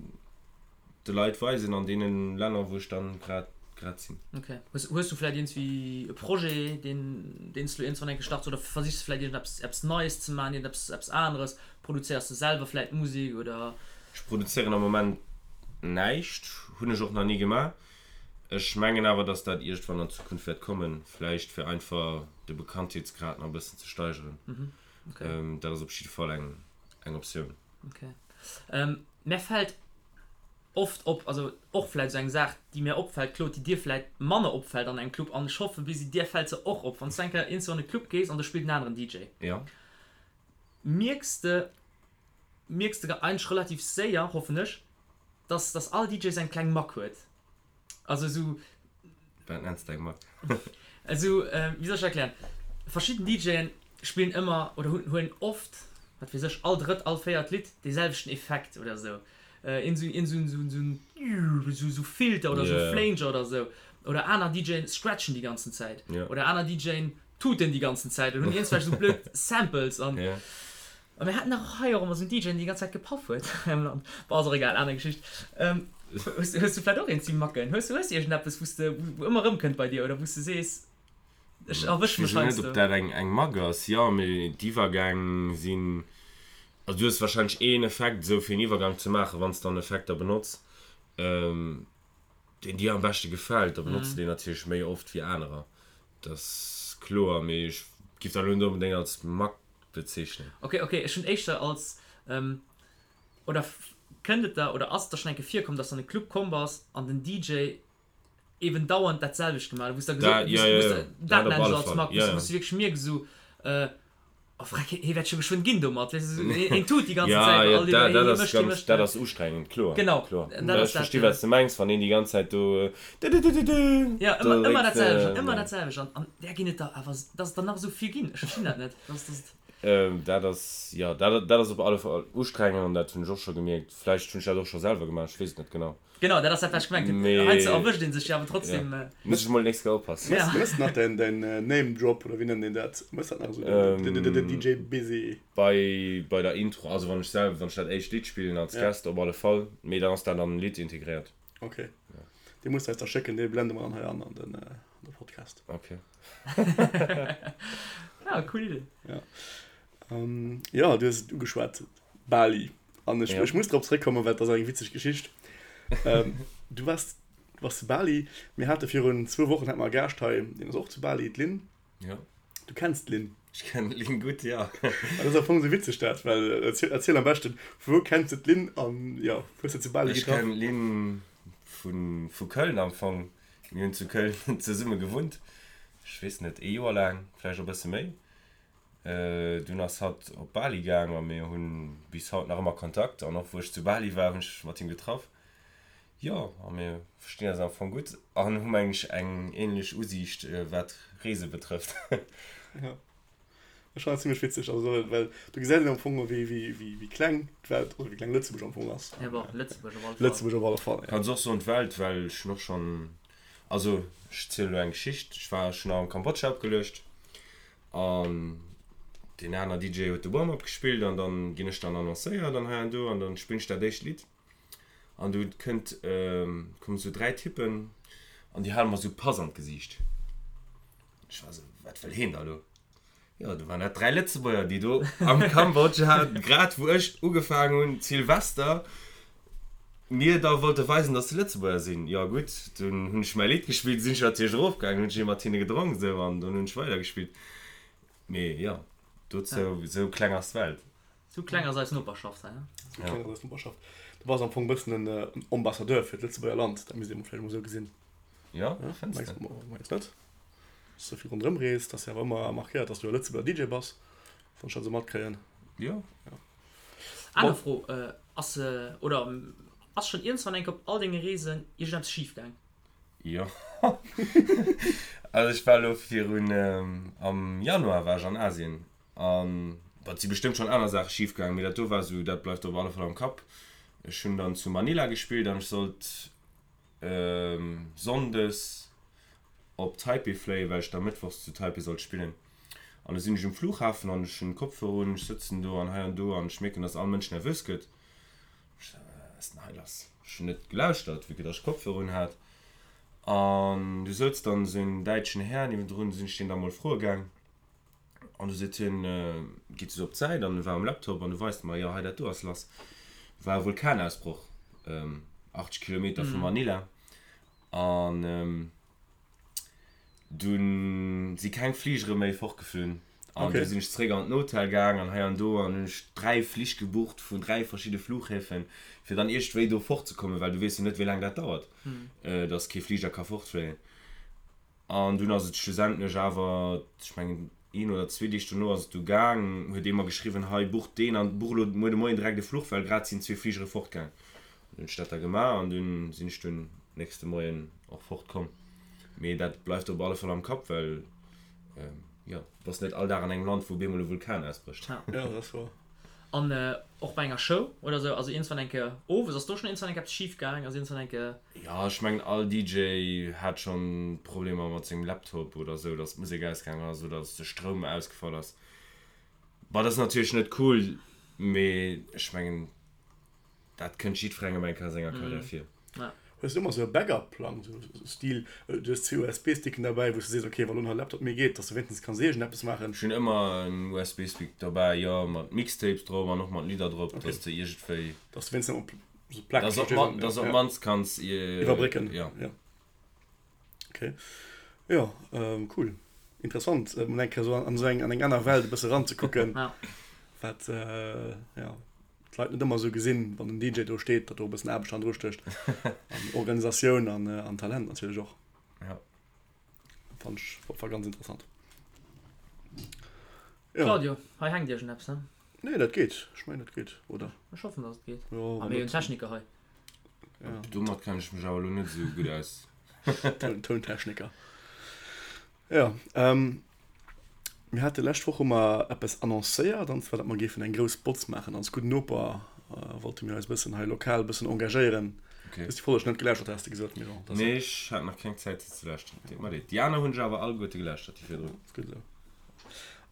de Leit weisen an deenen Länner, wou ech dann grad grad sinn. Ok. Hues hues du vläit iergendwéi e Projet, deen deen s du iergendwann eng Kéier starts oder versichs de vläit iergendeppes eppes Neies ze maachen, iergendeppes eppes aneres? Produzéiers de selwer vläit Musek oder? Ech produzéieren am Moment näischt, hunn ech och nach ni gemaach. Ech mengen awer, dass dat iergendwann an Zukunft wäert kommen, vläicht fir einfach de Bekanntheetsgrad nach e bëssen ze steigeren. Dat ass op jidde Fall eng eng Optioun. Ok. Mär fält. oft op, also och vläit esou eng Saach, déi mir opfält, Claude, déi dir vläit manner opfält an engem Club, an ech hoffe Busy, dir fält se och op, wann s du eng Kéier iergendwou an e Club gees an do spillt en aneren DJ, Ja. mierks de, mierks de eigentlech relativ séier, hoffen ech, dass, dass all DJ seng kleng Mack huet. Also esou. Wat nenns de eng Mack? Esou, wéi soll ech dat erklären? Verschidden DJen spillen ëmmer oder hunn, huelen oft, wat weess ech, all drëtt, all véiert Lidd dee selwechten Effekt oder esou. Een esou, een esou, esou, esou, esou Filter oder esou Flanger oder esou. Oder aner DJen scratchen déi ganzen Zäit. Oder aner DJen tuten déi ganzen Zäit oder hunn iergendwelch esou blöd Samples an. A mir haten dach och hei och ëmmer esou en DJ, deen déi ganz Zäit gepaff huet hei am Land. Bon, ass och egal, aner Geschicht. Hues hues du vläicht och eent ze macken? Hues du hues du iergendeppes, wou s de, wou ëmmer erëmkënnt bei dir oder wou s de sees, ech erwësch mech heiansdo? Ech weess net, ob dat eng eng Mack ass. Jo, mee d'Iwwergäng sinn, also du hues warscheinlech een Effekt esou fir en Iwwergang ze maachen, wann s de dann Effekter benotz, deen dir am beschte gefält, da benotz de deen natierlech méi oft wéi anerer. Dat ass kloer, mee ech giff dat elo net onbedéngt als Mack bezeechnen. Ok, ok, ech hunn éischter als, oder kënnt et der, oder ass et der schonn eng Kéier virkomm, dass du an e Club komm bass an den DJ eben dauernd dat selwecht gemaach huet, wou s de gesot, wou s de, dat nennen ech als Mack, wou s de wierklech mierks esou, oh freck, hie wäert scho geschwënn ginn domat, weess de, esou, hien tut déi ganzen Zäit, all déi, hie mécht, hie mécht. Dat ass ustrengend, kloer. Genau, dat ass dat. Ech versti wat s de mengs, wann een déi ganz Zäit do dëdëdëdëdë. Jo, ëmmer, ëmmer dat selwecht an ëmmer dat selwecht an där ginn et der awer, dass et der nach esou vill ginn, ech verstinn dat net, dass, dass et. Dat ass, jo, dat, dat ass op alle Fall ustrengend an dat hunn ech och scho gemierkt. Vläicht hunn ech dat och scho selwer gemaach, ech weess et net genau. Genau, dat ass dat, wat ech gemengt hunn. Mee. Heiansdo erwëscht ee sech jo awer trotzdem. Ja, muss ech mol nächst Kéier oppassen. Ja. Mëss nach däin, däin Name Drop, oder wéi nennt een dat? Mëss dat nach esou, den, den, den DJ Busy? Bei, bei der Intro, also wann ech selwer, wann ech dat éischt Lidd spillen als Guest, op alle Fall. Mee dann ass dat an den Lidd integréiert. Ok. Dee muss de eis da schécken, dee blende mer dann hei an, an den, an de Podcast. Ok. Ja, cool Idee. Ja. Jo, du hues et ugeschwat, Bali. An ech, ech muss drop zréckkommen, well et ass eng witzeg Geschicht. Du waars, du waars zu Bali. Mir hate virun zwou Wochen hate mer e Gaascht hei, deen ass och zu Bali, d'Lynn. Jo. Du kenns d'Lynn? Ech kennen d'Lynn gutt, jo. An dat ass am Fong esou witzeg dat, well erziel, erziel am beschten, vu wou kenns de d'Lynn an jo, wou hues de zu Bali getraff? Ech kennen d'Lynn vu, vu Köln am Fong. Mir hunn zu Köln zesumme gewunnt, ech weess net, ee Joer laang, vläicht och e bësse méi. Dunn ass hatt op Bali gaang a mir hunn bis haut nach ëmmer Kontakt. An och wou ech zu Bali war, hunn ech mat him getraff. Jo, a mir verstinn eis am Fong gutt an hu meng ech eng ähnlech Usiicht wat Reese betrëfft. Jo, ech fannen dat zimlech witzeg, also well do gesäit een am Fong wéi wéi wéi kleng d'Welt oder wéi kleng Lëtzebuerg am Fong ass. Jo, bon, Lëtzebuerg op alle Fall. Lëtzebuerg op alle Fall, jo. Kanns och soen d'Welt, well ech hunn och schonn, also ech zielen elo eng Geschicht, ech war schonn am Kambodscha opgeluecht An deen aner DJ huet de Warm-up gespillt an dann ginn ech dann annoncéiert an hei an do an dann spillen ech dat éischt Lidd an du kënnt, kommen esou 3 Typen an déi hale mer esou Pass an d'Gesiicht. Ech war esou, wat wëll heen da lo? Jo, du waren dat 3 Lëtzebuerger, déi do am Kambodscha, grad wou ech ugefaangen hunn, Silvester, mir da wollte weisen, dass se Lëtzebuerger sinn. Jo gutt, dunn hunn ech mäi Lidd gespillt, sinn ech natierlech erofgaangen, hunn ech ee mat hinne gedronk esou an dunn hunn ech weidergespillt. Mee jo, dozou, esou kleng ass d'Welt. Esou kleng ass eis Noperschaft hei, ne? Esou kleng ass eis Noperschaft. Du bass am Fong e bëssen en Ambassadeur fir d'Lëtzebuerger Land, dat misst ee mol vläicht emol esou gesinn. Jo, fënns de? Mengs net? Dass du vill ronderëm rees, dass jo awer ëmmer markéiert, dass du e Lëtzebuerger DJ bass, wann ech dat esou matkréien. Jo. Aner Fro, Ass oder ass schonn iergendwann eng Kéier op all denge Reesen iergendeppes schif gaang? Jo. Also ech war elo virun, am Januar war ech an Asien an, bon, et si bestëmmt schonn aner Saache schif gaang, mee dat do war esou, dat bleift op alle Fall am Kapp. Ech hunn dann zu Manila gespillt an ech sollt Sonndes op Taipei fléien, well ech da Mëttwochs zu Taipei sollt spillen. An du sinn ech um Flughafen an ech hunn Kopfhörer un, ech sëtzen do an hei an do an ech mierken, dass all Mënsch nervös gëtt. Ech sou, Wat ass denn hei lass? Ech hunn net gelauschtert, vue que dass ech Kopfhörer un hat. An du souz dann esou en däitschen Här niewendrun, du sinn ech deen da mol froe gaang. An du seet hien, geet esou op d'Säit an e war um Laptop an du weist mer, jo hei dat do ass lass. War e Vulkanausbroch, 80 Kilometer vu Manila. An dunn si keng Fligere méi fortgeflunn. An du sinn ech zeréck an den Hotel gaang an hei an do an hunn ech 3 Flich gebucht vun 3 verschidde Flughäfen, fir dann iergendwéi do fortzekommen, well du weess jo net, wéi laang dat dauert, dass kee Fliger ka fortfléien. An dunn ass et schlussendlech awer, ech mengen een oder zwee Deeg dono ass et du gaang, huet ee mer geschriwwen, hei buch deen an buch elo muer de Moien direkt e Fluch, well grad sinn zwee Fligere fortgaang. An dunn hunn ech dat da gemaach an dunn sinn ech dunn nächste Moien och fortkomm. Mee dat bleift op alle Fall am Kapp, well jo, du bass net all Dag an engem Land, wou op eemol e Vulkan ausbrécht. Ja. Ja, dat ass woer. An och bei enger Show oder sou, also iergendswann eng Kéier owes, ass do schonn iergendswann eng Kéier eppes schif gaang? Ass iergendswann eng Kéier. Jo, ech mengen all DJ hat schonn Problemer mat sengem Laptop oder sou, dass d'Musek ausgaangen ass oder dass de Stroum ausgefall ass. Bon, dat ass natierlech net cool, mee ech mengen, Dat kënnt jiddwerengem eng Kéier a senger Karriär vir. Hues du ëmmer sou e Backup-Plang, sou Stil, du hues zwee USB-Sticken derbäi, wou s du sees, ok, wa lo nach e Laptop méi geet, dass du wéinstens kanns iergendeppes maachen? Ech hunn ëmmer en USB-Stick derbäi, jo, mat Mixtapes drop an och mat Lidder drop, dass de iergendwéi. Dass du wéinstens op sou Plack. Dass op dass op d'mannst kanns. Iwwerbrécken. Jo. Ok, jo, cool, interessant, mol eng Kéier sou an esou eng, an eng aner Welt e bësse eranzekucken, wat, jo. d'Leit net ëmmer esou gesinn, wann den DJ do steet, datt do e bëssen Aarbecht hannendru stécht an Organisatioun an, an Talent natierlech och. Ja. Fand ech war ganz interessant. Ja. Claudio, hei hänkt iergendeppes, ne? Nee, dat geet. Ech mengen, dat geet, oder? Ech hoffen, datt et geet. Jo, Ah, mir hunn Techniker hei. Ja. Domat kenne ech mech awer elo net esou gutt aus. Toun, Tountechniker. Jo, mir hate lescht Woch hu mer eppes annoncéiert, an zwar datt mer géifen eng grouss Botz maachen. Als gudden Noper wollte mir eis e bëssen hei lokal e bëssen engagéieren. Okay. Du hues déi Folleg net gelauschtert, has de gesot, mee bon, dat ass. Nee, ech hat nach keng Zäit se ze lauschteren. Deet mer leed. Déi aner hunn ech awer alleguerte gelauschtert, déi virdrun. Ass gutt esou.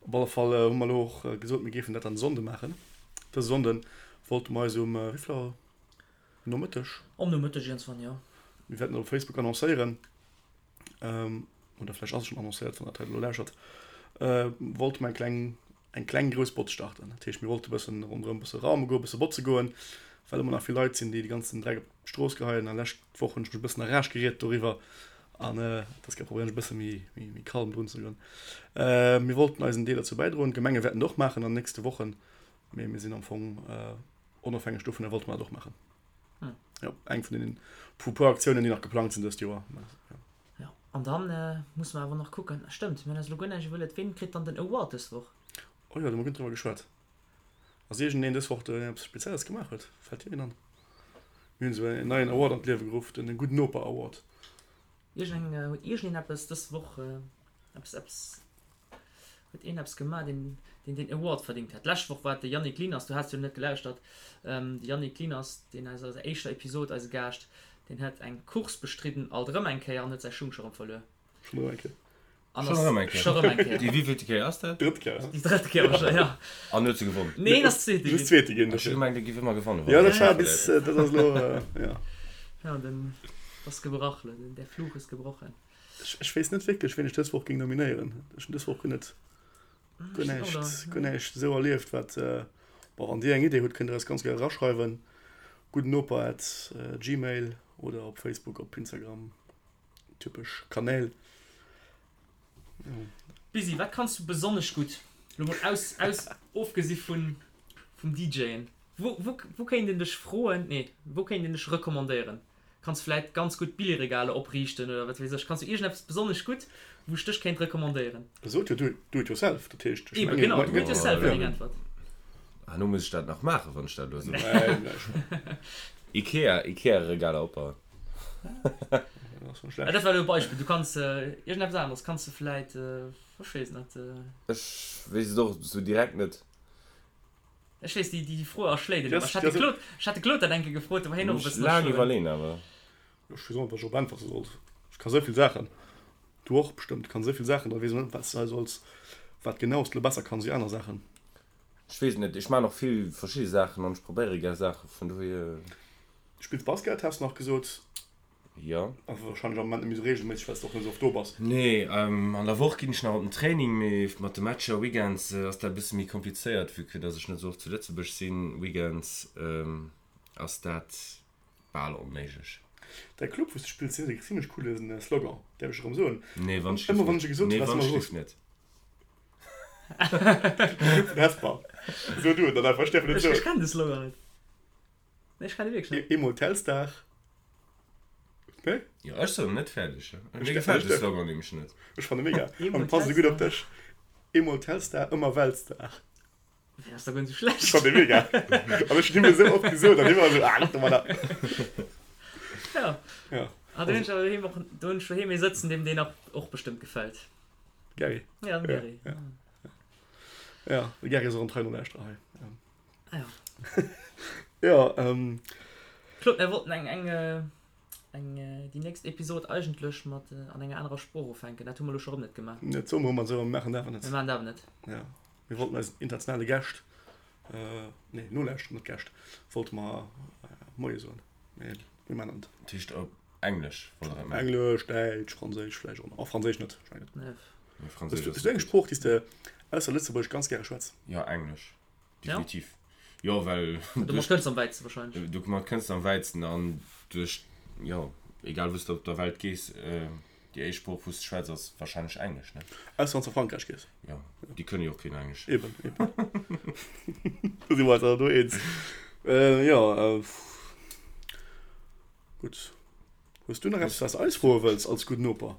Op alle Fall hu mer elo och gesot, mir géifen dat dann Sonnde maachen. Dëse Sonnde wollte mer eis um, wéi vill Auer? Nomëtteg? Am Nomëtteg iergendswann, jo. Mir wäerten et op Facebook annoncéieren. oder vläicht ass et schonn annoncéiert, wann der dat hei elo lauschert, wollte mer eng kleng, eng kleng grouss Botz starten. Dat heescht, mir wollte e bëssen ronderëm e bësse raume goen, e bësse botze goen, well ëmmer nach vill Leit sinn, déi de ganzen Dreck op d'Strooss geheien. A lescht Woch hunn ech mech e bëssen a Rage geriet doriwwer an dës Kéier probéieren ech e bësse méi, méi, méi calm drun ze goen. Mir wollten eisen Deel dozou bäidroen. D'Gemenge wäerten et och maachen an den nächste Wochen, mee mir sinn am Fong onofhängeg dovunner wollte mer dat och maachen. Hm. Jo, eng vun den pu puer Aktiounen, déi nach geplangt sinn dëst Joer. Ja. Ja, an dann äh, musse mer awer nach kucken. Stëmmt, mir hunn eis elo guer näischt iwwerluet. Ween kritt dann den Award dës Woch? Oh jo, do hu mer guer net driwwer geschwat. Ass iergendeen dës Woch, deen eppes Spezielles gemaach huet? Fält dir een an? Mir hunn esou en neien Award an d'Liewe geruff, den Gudden Noper Award. Iergend, huet iergendeen eppes dës Woch, äh, eppes, eppes Huet een eppes gemaach, deen deen den Award verdingt hätt? D'lescht Woch war et de Yannick Lieners, du has jo net gelauschtert, de Yannick Lieners, deen aus eiser éischter Episod eise Gaascht, deen huet eng Course bestridden, alt erëm eng Kéier, an huet säi Schung scho rëm verluer. Schonn erëm eng Kéier. An Schonn ass erëm eng Kéier. scho rëm eng Kéier. Déi wéivillte Kéier ass dat? Déi drëtt Kéier. Déi drëtt Kéier wahrscheinlech, ja. An huet se gewonnen? Nee, en ass Zweete Just ginn. Zweete ginn, Ech hu dofir. gemengt, e giff ëmmer gewannen, wann Jo, en dat war verléiert. bis, dat ass elo, ja. Ja, den ass gebrach elo, den, der Fluch ist gebrochen. Ech weess net wierklech, ween ech dës Woch géing nominéieren. Ech hunn dës Woch guer net, guer näischt, guer näischt esou erlieft, wat, bon, wann Dir eng Idee hutt, kënnt Dir eis ganz gär eraschreiwen, guddennoper at gmail oder op Facebook, op Instagram, typesch Kanäl. Jo. Busy, wat kanns du besonnesch gutt? Lo mol aus, aus, ofgesi vun, vum DJen. Wou, wou, wou kéint een dech froen, nee, wou kéint een dech recommandéieren? Kanns vläit ganz gutt Billigregaler opriichten oder wat weess ech. Kanns du iergendeppes besonnesch gutt, wou ech dech kéint recommandéieren? Sot jo do it yourself, dat heescht, ech Eben, genau, do it yourself wär deng Äntwert. Herno muss ech dat nach maachen, wann ech dat elo soen. Ikea, Ikea-Regaler opbauen. Dat war elo e Beispill. Du kanns iergendeppes aneres kanns du vläit, ech weess net. Ech weess et och esou direkt net. Ech weess, déi, déi Fro erschléit een ëmmer. Ech hat de Claude, ech hat de Claude dat eng Kéier gefrot, do war hien och e bëssen Laang erschroen. iwwerleen awer. Ech weess och net, wat ech drop äntwerte sollt. Ech ka sou vill Saachen. Du och bestëmmt. Du kanns esou vill Saachen, da weess een net, wat s de hei solls, wat genau s de elo besser kanns wéi aner Saachen. Ech weess et net. Ech maachen och vill verschidde Saachen an ech probéiere gär Saachen, vun dohier. Du spills Basket, has de nach gesot. Jo. Awer wahrscheinlech am Moment net méi sou regelméisseg, well s de och net sou oft do bass. Nee, an der Woch ginn ech nach op den Training, mee mat de Matcher weekends ass dat e bësse méi komplizéiert, vue que dass ech net sou oft zu Lëtzebuerg sinn. Weekends ass dat bal onméiglech. Däi Club, wou s de spills, deen huet e zimmlech coole Slogan, däerf ech erëm soen? Nee, wann ech Ëmmer wann ech e gesot hunn, waars du ëmmer erous. Net. Club vun Hesper. So du et dann einfach, ech däerf et net Ech soen. kennen de Slogan net. Nee, ech kennen dee wierklech net. Eemol Telstar. Nee? Jo, ech soen net fäerdeg. Mir gefält de Slogan nämlech net. Ech fanne mega. Eemol An passt esou gutt op Telstar. dech. Eemol Telstar, ëmmer Weltstar. Deen ass da guer net esou schlecht. Ech fanne mega. An ech hunn him esou oft gesot an hie war esou, ah, lass domadder. Ja. Ja. Ah, do hunn ech awer doheem och, do hunn ech doheem ee sëtzen, deem deen och bestëmmt gefält. Gary. Ja, den Gary. Ja, ja. Ja, de Gary ass och en treien Nolauschterer hei. Ah ja. Ja, ähm. Claude, mir wollten eng, eng, eng, déi nächst Episod eigentlech mat an enger anerer Sprooch ufänken. Dat hu mer elo scho rëm net gemaach. Dat soe mer ëmmer esou a mir maachen et awer net. Mir maachen et awer net. Ja, mir wollten eisen internationale Gäscht, nee, Nolauschterer, net Gäscht, wollte mer Moie soen, mee mir maachen et net. Dat heescht op Englesch wollt der dat maachen? Englesch, Däitsch, Franséisch vläicht och nach. Oh, Franséisch net, ech mengen net. Nee. Nee, Franséisch Hues ass du net eng gutt. Sprooch, déi s de ausser Lëtzebuergesch ganz gäre schwätz? Jo, Englesch. Definitiv. Jo, well Domat kënns de am wäitste wahrscheinlech. Domat kënns de am wäitsten an duerch, jo, egal wou s de op der Welt gees, déi éischt Sprooch wou s de schwätz ass wahrscheinlech Englesch, ne? Ausser wann s de a Frankräich gees. Jo, déi kënne jo och keen Englesch. Eben, eben. Do si mer eis awer do eens. Jo, gutt. Hues du nach eppes wat s de eis froe wëlls als gudden Noper?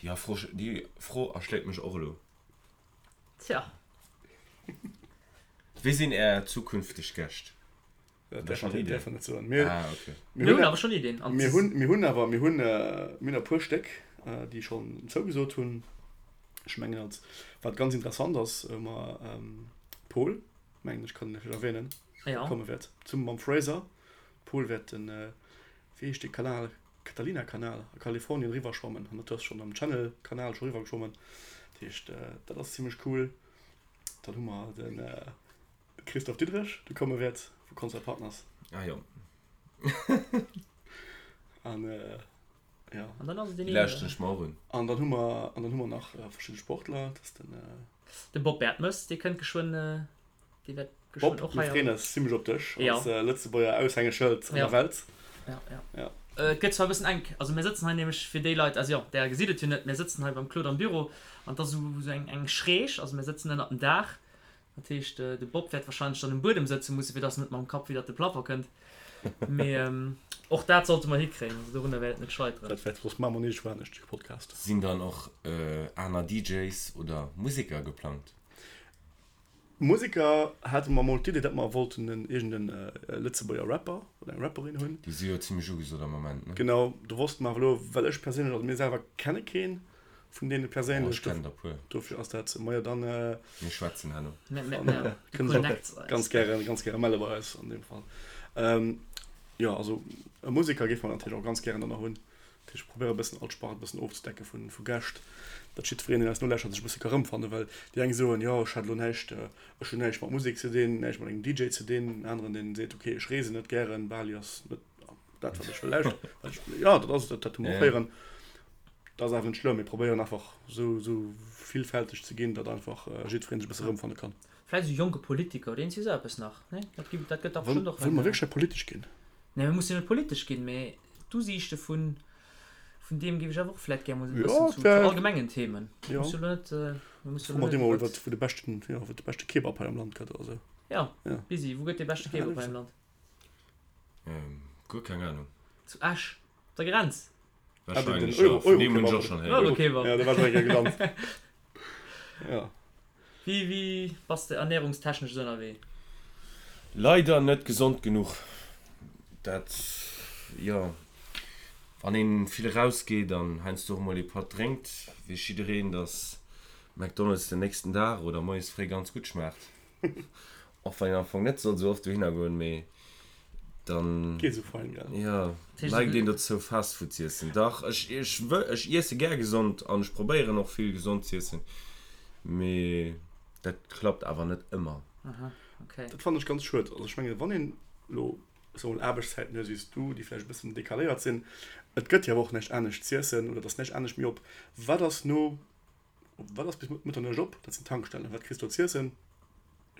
Déi Fro, déi Fro erschléit mech och elo. Tja. Wie sinn Är zukünfteg Gäscht? Dat Hutt Der schonn däerf Iddien? een net soen. Mir, Ah, okay. mir Mir hunn hunn awer schonn Iddien. An mir hunn, mir hunn awer, mir hunn, mir hunn e puer Stéck, déi schonn zougesot hunn. Ech mengen als, wat ganz interessant ass, hu mer Paul, mengen ech kann en vläicht erwähnen, Ja. komme wäert, zesumme mam Fraser. Paul wäert den, wéi heescht dee Kanal? Catalina-Kanal a Kalifornien eriwwer schwammen an dat ass schonn am Channel-Kanal scho eriwwer geschwommen. Dat heescht, dat ass zimmlech cool. Dann hu mer de Christophe Diderich, dee komme wäert vu Concert Partners. Ah jo. An jo. An dann ass et deen Déi een. lauschteren ech mer och un. An dann hu mer, an dann hu mer nach verschidde Sportler, dat ass den. De Bob Bertemes, dee kënnt geschwënn Déi wäert Bob, geschwënn och mir hei freeën am. eis zimmlech op dech Ja. als Lëtzebuerger Aushängeschëld an Ja. der Welt. Ja, ja. Ja. Et gëtt zwar e bëssen enk, also mir sëtzen hei nämlech, fir déi Leit, also jo, där gesitt et jo net, mir sëtzen hei beim Claude am Büro an et ass esou esou eng eng Schräg, also mir sëtzen ënnert dem Daach. Dat heescht, de Bob wäert wahrscheinlech dann um Buedem sëtze mussen, fir dass en net mam Kapp widdert de Plafond kënnt. Mee och dat sollte mer hikréien, also dorunner wäert et net scheiteren. Dat wäert soss maache mer iergendwou anescht de Podcast. Sinn dann och aner DJs oder Museker geplangt? Museker hate mer mol d'Idee, datt mer wollten en iergend en Lëtzebuerger Rapper oder eng Rapperin hunn. Déi si jo zimmlech ugesot am Moment, ne? Genau, do wosste mer awer elo, well ech perséinlech, also mir selwer kenne kee vun deene Oh, perséinlech, ech kennen der puer. dofir ass dat, majo dann Mir schwätzen herno. kënne se och ganz gäre, ganz gäre melle bei eis an deem Fall. Jo, also e Museker géife mer natierlech och ganz gären dann nach hunn. Dat heescht, ech probéiere e bëssen all Spart e bëssen ofzedecken vu, vu Gäscht, datt jiddwereen, deen eis nolauschtert, sech e bësse ka rëmfannen. Well déi eng soen, jo, ech hätt elo näischt, ech hunn näischt mat Musek ze dinn, näischt mat engem DJ ze dinn. En aneren, deen seet, okay, ech reesen net gären, Bali ass net dat, wat ech wëll lauschteren. Wat ech, jo, dat ass et, dat, dat hu mer och héieren. Dat ass awer net schlëmm. Mir probéieren einfach esou, esou villfälteg ze ginn, datt einfach jiddwereen sech e bësse rëmfanne kann. Vläicht esou jonke Politiker oder iergendwéi esou eppes nach, nee? Dat gi, dat gëtt dach Wëll, bestëmmt och wëlle eng. mer wierklech hei politesch ginn? Nee, mir mussen jo net politesch ginn, mee d'Usiichte vun, vun deem géif ech awer och vläit gär mol esou e Ja, bëssen zu, zu dat, allgemengen Themen. ja. Muss jo elo net, mir musse Fro jo elo mer net déi mol iwwert. iwwert, wou de beschten, jo, wou de beschte Kebab hei am Land gëtt oder esou. Ja, Ja. Busy, wou gëtt dee beschte Ja, Kebab hei am Land? Ähm, guer keng Ahnung. Zu Esch, op der Grenz. Ah, den, den Wahrscheinlech, ja. Euro, Vun deem hunn ech Euro-Kebab. och schonn héieren. Euro-Kebab. Ja, do war ech och eng Kéier gelant. Ja. Wéi, wéi bass de ernährungstechnesch esou ënnerwee? Leider net gesond genuch. Dat, jo, wann een vill erausgeet an heiansdo och mol ee Patt drénkt, weess jiddereen, dass McDonald's den nächsten Dag oder moies fréi ganz gutt schmaacht. Och wann een am Fong net soll sou oft dohinner goen, mee dann, Geet esou fein, gell? jo, neigt een dozou Fast Food z'iessen. Dach, ech, ech wëll, ech iesse gär gesond an ech probéieren och vill gesond z'iessen, mee dat klappt awer net ëmmer. Aha, okay. Dat fannen ech ganz schued. Also ech mengen, wann een elo, ech soe mol, Aarbechtszäiten huet, wéi s du, déi vläicht e bëssen decaléiert sinn, et gëtt jo awer och näischt anescht z'iessen oder et ass näischt anescht méi op. Wat ass no Wat ass bis Mëtternuecht op? Dat sinn Tankstellen. Wat kriss du do z'iessen?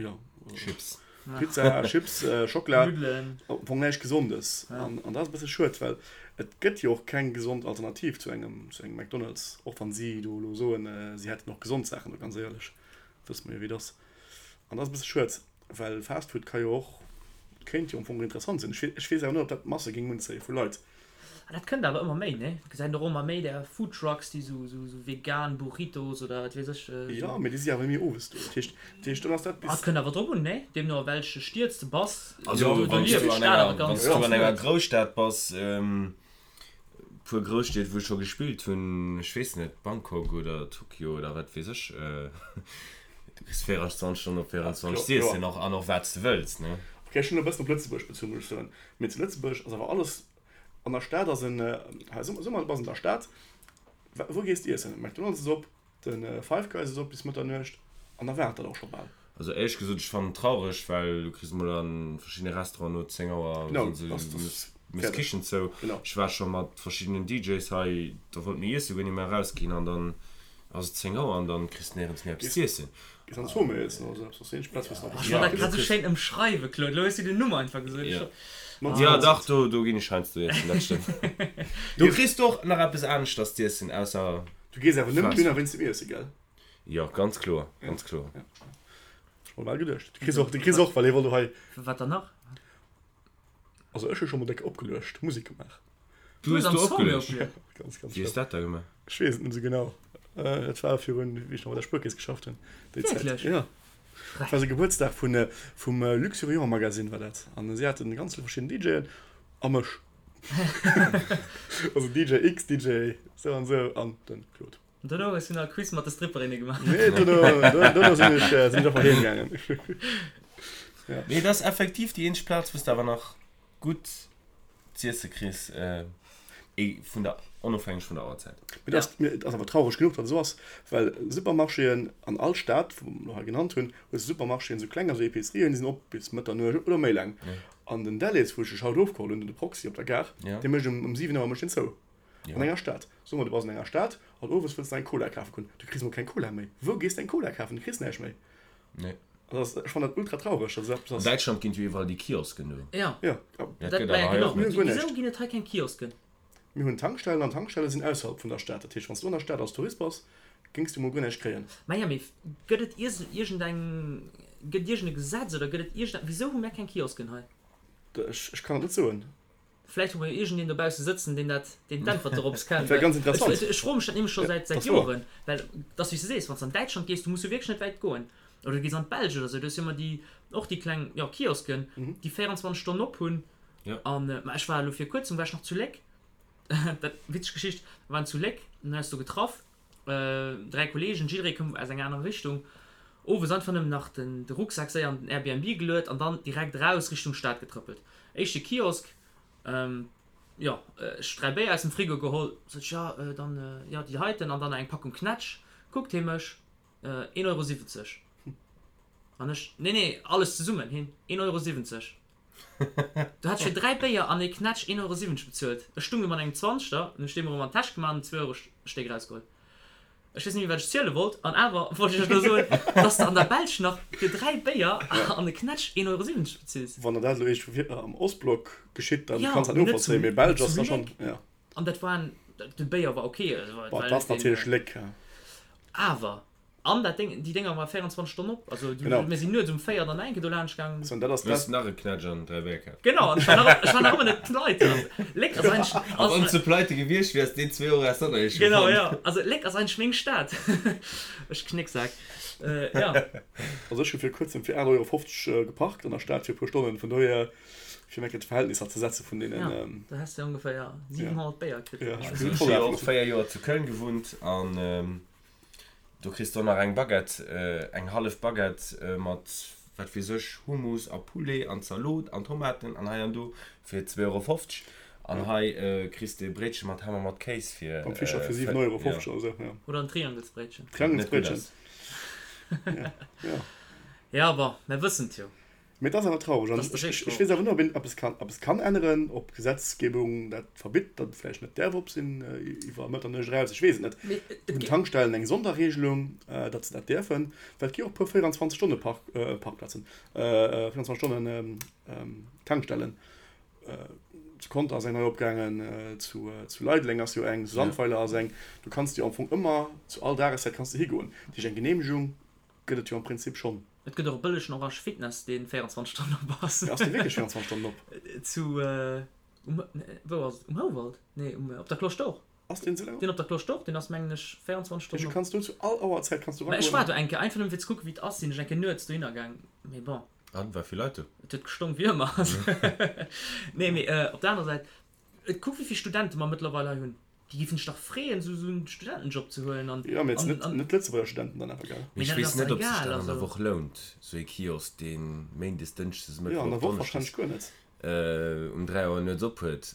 Jo. Chips. Pizza, Chips, Schockela, am Fong näischt Gesondes. An dat ass e bësse schued, well et gëtt jo och keng gesond Alternativ zu engem, zu engem McDonald's, och wann si do elo soen, si hätten och gesond Saachen do, ganz éierlech, wësse mer jo wéi et ass. An dat ass e bësse schued, well Fast Food ka jo och, kéint jo am Fong interessant sinn. Ech weess awer net, ob dat d'Masse géing unzéie vu Leit. Ah, dat kënnt awer ëmmer méi, ne? Gesäit och ëmmer méi där Foodtrucks, déi sou, sou, sou vegan Burritos oder wat weess ech. Jo, mee déi si awer méi owes do. Dat heescht, dat heescht, dann ass dat bis. Ah, et kënnt awer drop un, ne? Deemno a welche Stied s de bass. Also, Do, do wann s lieft du an d'Stad awer enger, wann ganz, s du ganz an enger lues. Grousstad bass, puer Grousstied, wou ech scho gespillt hunn, ech weess net, Bangkok oder Tokio oder wat weess ech, du kriss 24 Stonnen op 24 z'iessen och an och wat s de wëlls, ne? Ok, ech hunn elo e bëssen op Lëtzebuerg bezunn, muss ech soen. Mee zu Lëtzebuerg ass awer alles An der Stad ass en, hei so mol, du bass an der Stad, wou gees de iessen? McDonald's ass op, de Five Guys ass op bis Mëtternuecht an da war et dat och scho bal. Also éierlech gesot, ech fannen et traureg, well du kriss mol a verschiddene Restauranten no 10 Auer Genau, ass das méchs d'Kichen zou. Ech war scho mat verschiddenen DJs hei, da wollte mir iesse goen, ier mir erausginn an dann ass et 10 Auer an dann kriss de néierens méi eppes z'iessen. Gees an d'Zoo méi iessen oder sou eppes, ass déi eenzeg Plaz wou s de nach eppes Ech wollt dat grad sou schéin ëmschreiwen, Claude, elo hues du den Numm einfach gesot. Jo. Jo dach, do do ginn ech heiansdo iessen, dat stëmmt. Do kriss de och nach eppes aneschters z'iessen ausser Du gees awer nëmmen dohinner wéinst dem Iesse, gell? Jo, ganz kloer, ganz kloer. Ech mer bal geduecht. De Chris och, de Chris och, well hie wollt och hei. Wat dann nach? Also ech hu scho mol déck opgeluecht, Musek gemaach. Du hues do opgeluecht? Ja, ganz, ganz Wéi hues dat da gemaach? Ech weess et net esou genau. Dat war virun, wéi ech nach bei der Spuerkeess geschafft hunn, déi Zäit. Wierklech? Ja. Dat war sou Gebuertsdag vun, vum Luxuriant Magazine war dat. An si haten ganz vill verschidden DJen a mech. Also DJ X, DJ sou an sou an den Claude. An dono hues du nach e Quiz mat de Stripperinne gemaach? Nee, dono, dono sinn ech, sinn ech einfach heem gaangen. Ja. Mee et ass effektiv déi eenzeg Plaz, wou s de awer nach gutt z'iesse kriss, vun der, onofhängeg vun der Auerzäit. Mee et ass, mee et ass awer traureg genuch, datt et esou ass, well Supermarchéen an all Stad, wou mer elo hei genannt hunn, hues de Supermarchéen, esou kleng, also Epicerien, déi sinn op bis Mëtternuecht oder méi laang. An den Delhaize, wou ech dech haut ofgeholl hunn, de Proxy op der Gare, dee mécht um 7 Auer mécht deen zou. An enger Stad. Soe mer, du bass an enger Stad an owes wëlls de eng Cola kafe goen. Du kriss emol keng Cola méi. Wou gees de eng Cola kafen? Du kriss näischt méi. Nee. An dat ass, ech fannen dat ultra traureg, datt esou eppes An ass. Däitschland ginn et jo iwwerall déi Kiosken do. Ja. Ja. Dat Dat, gëtt ma ja awer hei genau. och net. Mir hunn guer Wisou näischt. ginn et hei keng Kiosken? Mir hunn Tankstellen an Tankstelle sinn ausserhalb vun der Stad. Dat heescht, wann s du an der Stad als Tourist bass, géings du emol guer näischt kréien. Ma ja, mee gëtt et iergendeng, gëtt et iergend e Gesetz oder gëtt et iergend, wisou hu mär keng Kiosken hei? Ech, ech kann et net soen. Vläicht hu mer jo iergendeen dobausse sëtzen, deen dat, deen d'Äntwert dorops kennt. Dat wär ganz interessant. Ech, ech froe mech dat nämlech scho säit, säit Joren. Well et ass wéi s de sees, wann s de an Däitschland gees, du muss jo wierklech net wäit goen. Oder du gees an d'Belsch oder sou, do hues jo ëmmer déi, och déi kleng, jo, Kiosken, déi 24 Stonnen op hunn. An, ma ech war elo vir kuerzem war ech nach zu Léck, dat, witzeg Geschicht, mer waren zu Léck, hunn eis do getraff, 3 Kollegen, jidderee koum aus enger anerer Richtung, owes einfach nëmmen nach den de Rucksak séier an den Airbnb geluet an dann direkt raus Richtung Stad getrëppelt. Éischte Kiosk, jo, ech 3 Béier aus dem Frigo geholl, sot ech, jo, dann, jo, déi heiten an dann nach eng Packung Knätsch. Kuckt hie mech, 1,70 Euro. An ech, nee, nee, alles zesummen, hien, 1,70 Euro. Du hat ech fir 3 Béier an ee Knätsch 1,70 Euro bezuelt. Ech stung do mat engem Zwanzegter, hunn ech dee mer erëm an d'Täsch gemaach an en Zweeurostéck erausgeholl. Ech weess net méi wat ech ziele wollt an awer wollt ech iech elo soen, dass de an der Belsch nach fir 3 Béier an e Knätsch 1,70 Euro bezills. Wann der dat elo iergendwou am Ostblock geschitt, dann Jo, kanns de dat mee net novollzéien, zu mee Belsch zu ass da schonn, Léck. jo. An dat war en, de Béier war ok, also Bon, et war et ass net deen, natierlech Léck, ja. awer An dat Déng, déi Dénger war 24 Stonnen op. Also du, Genau. mir sinn nuets um 4 dann enke do laanscht gaangen. So, dat ass Du hues dat. nach e Knätsch an 3 Béier kaf. Genau, an ech war nach, ech war nach ëmmer net pleite. Also Léck ass eigentlech, A wann ass, s de pleite gewiescht wiers, deen 2 Euro häss de och nach eescht genau, gefonnt. ja. Also Léck ass eigentlech meng Stad. Ech Knécksak. Äh, ja. Also ech hu fir kuerzem fir 8,50 Euro geparkt an der Stad fir e puer Stonnen. Vun dohier, fir eng Kéier d'Verhältnisser ze setze vun deenen. Ja, da häss de ongeféier 700 Béier kritt. Ja, ech Also hunn ech voll hu jo och afgeloffen. 4 Joer zu Köln gewunnt an Do kriss de och nach eng Baguette, eng hallef Baguette mat wat weess ech, Hummus a Poulet an Zalot an Tomaten an hei an do fir 2,50 Euro. An hei kriss de e Bréitche mat Ham a mat Kéis fir. Beim Fischer fir 7,50 Euro oder esou, jo. Oder en Triangelsbréitchen. Triangelsbréitchen. Ja, ja. Ja, bon, mer wëssen et jo. Mee et ass awer traureg. An ech weess awer net, ob een eppes kann, eppes kann änneren, ob d'Gesetzgebung dat verbitt, datt et vläicht net däerf op sinn iwwer Mëtternuecht eraus. Ech weess et net. Hunn d'Tankstellen eng Sonderregelung, datt se dat däerfen? Well et gi och e puer 24 Stonne Park, Parkplazen, 24 Stonnen Tankstellen. Zu Conter ass eng nei opgaangen, zu Leideleng ass jo eng, zu Sandweiler ass eng. Du kanns jo am Fong ëmmer zu all Dageszäit kanns de higoen. Dat heescht eng Geneemegung gëtt et jo am Prinzip schonn. Et gëtt och e bëllegen Orange Fitness deen 24 Stonnen op ass. Ass dee wierklech 24 Stonnen op? Zu, um, wou ass et? Um Houwald? Nee, um, op der Cloche d'Or. Ass deen esou laang op? Deen op der Cloche d'Or, deen ass mengen ech 24 Stonnen op. Du kanns do zu all Auerzäit kanns du eragoen. Mä ech war do eng Kéier, einfach nëmmen fir ze kucken wéi et ass, sinn ech eng Kéier nuets dohinner gaang, mee bon. An, war vill Leit do? Et huet gestonk wéi ëmmer. Nee, mee op der anerer Säit, kuck wéi vill Studente mer mëttlerweil hei hunn. Déi géifen sech dach freeën, esou en Studentenjob ze huelen. An, jo, mee net, net Lëtzebuerger Studenten dann awer, gell? Mee ech weess net, ob sech dat an der Woch lount, esou ee Kiosk, dee méindes, dënschdes, Mëttwoch, Donneschdes um 3 Auer nuets op huet.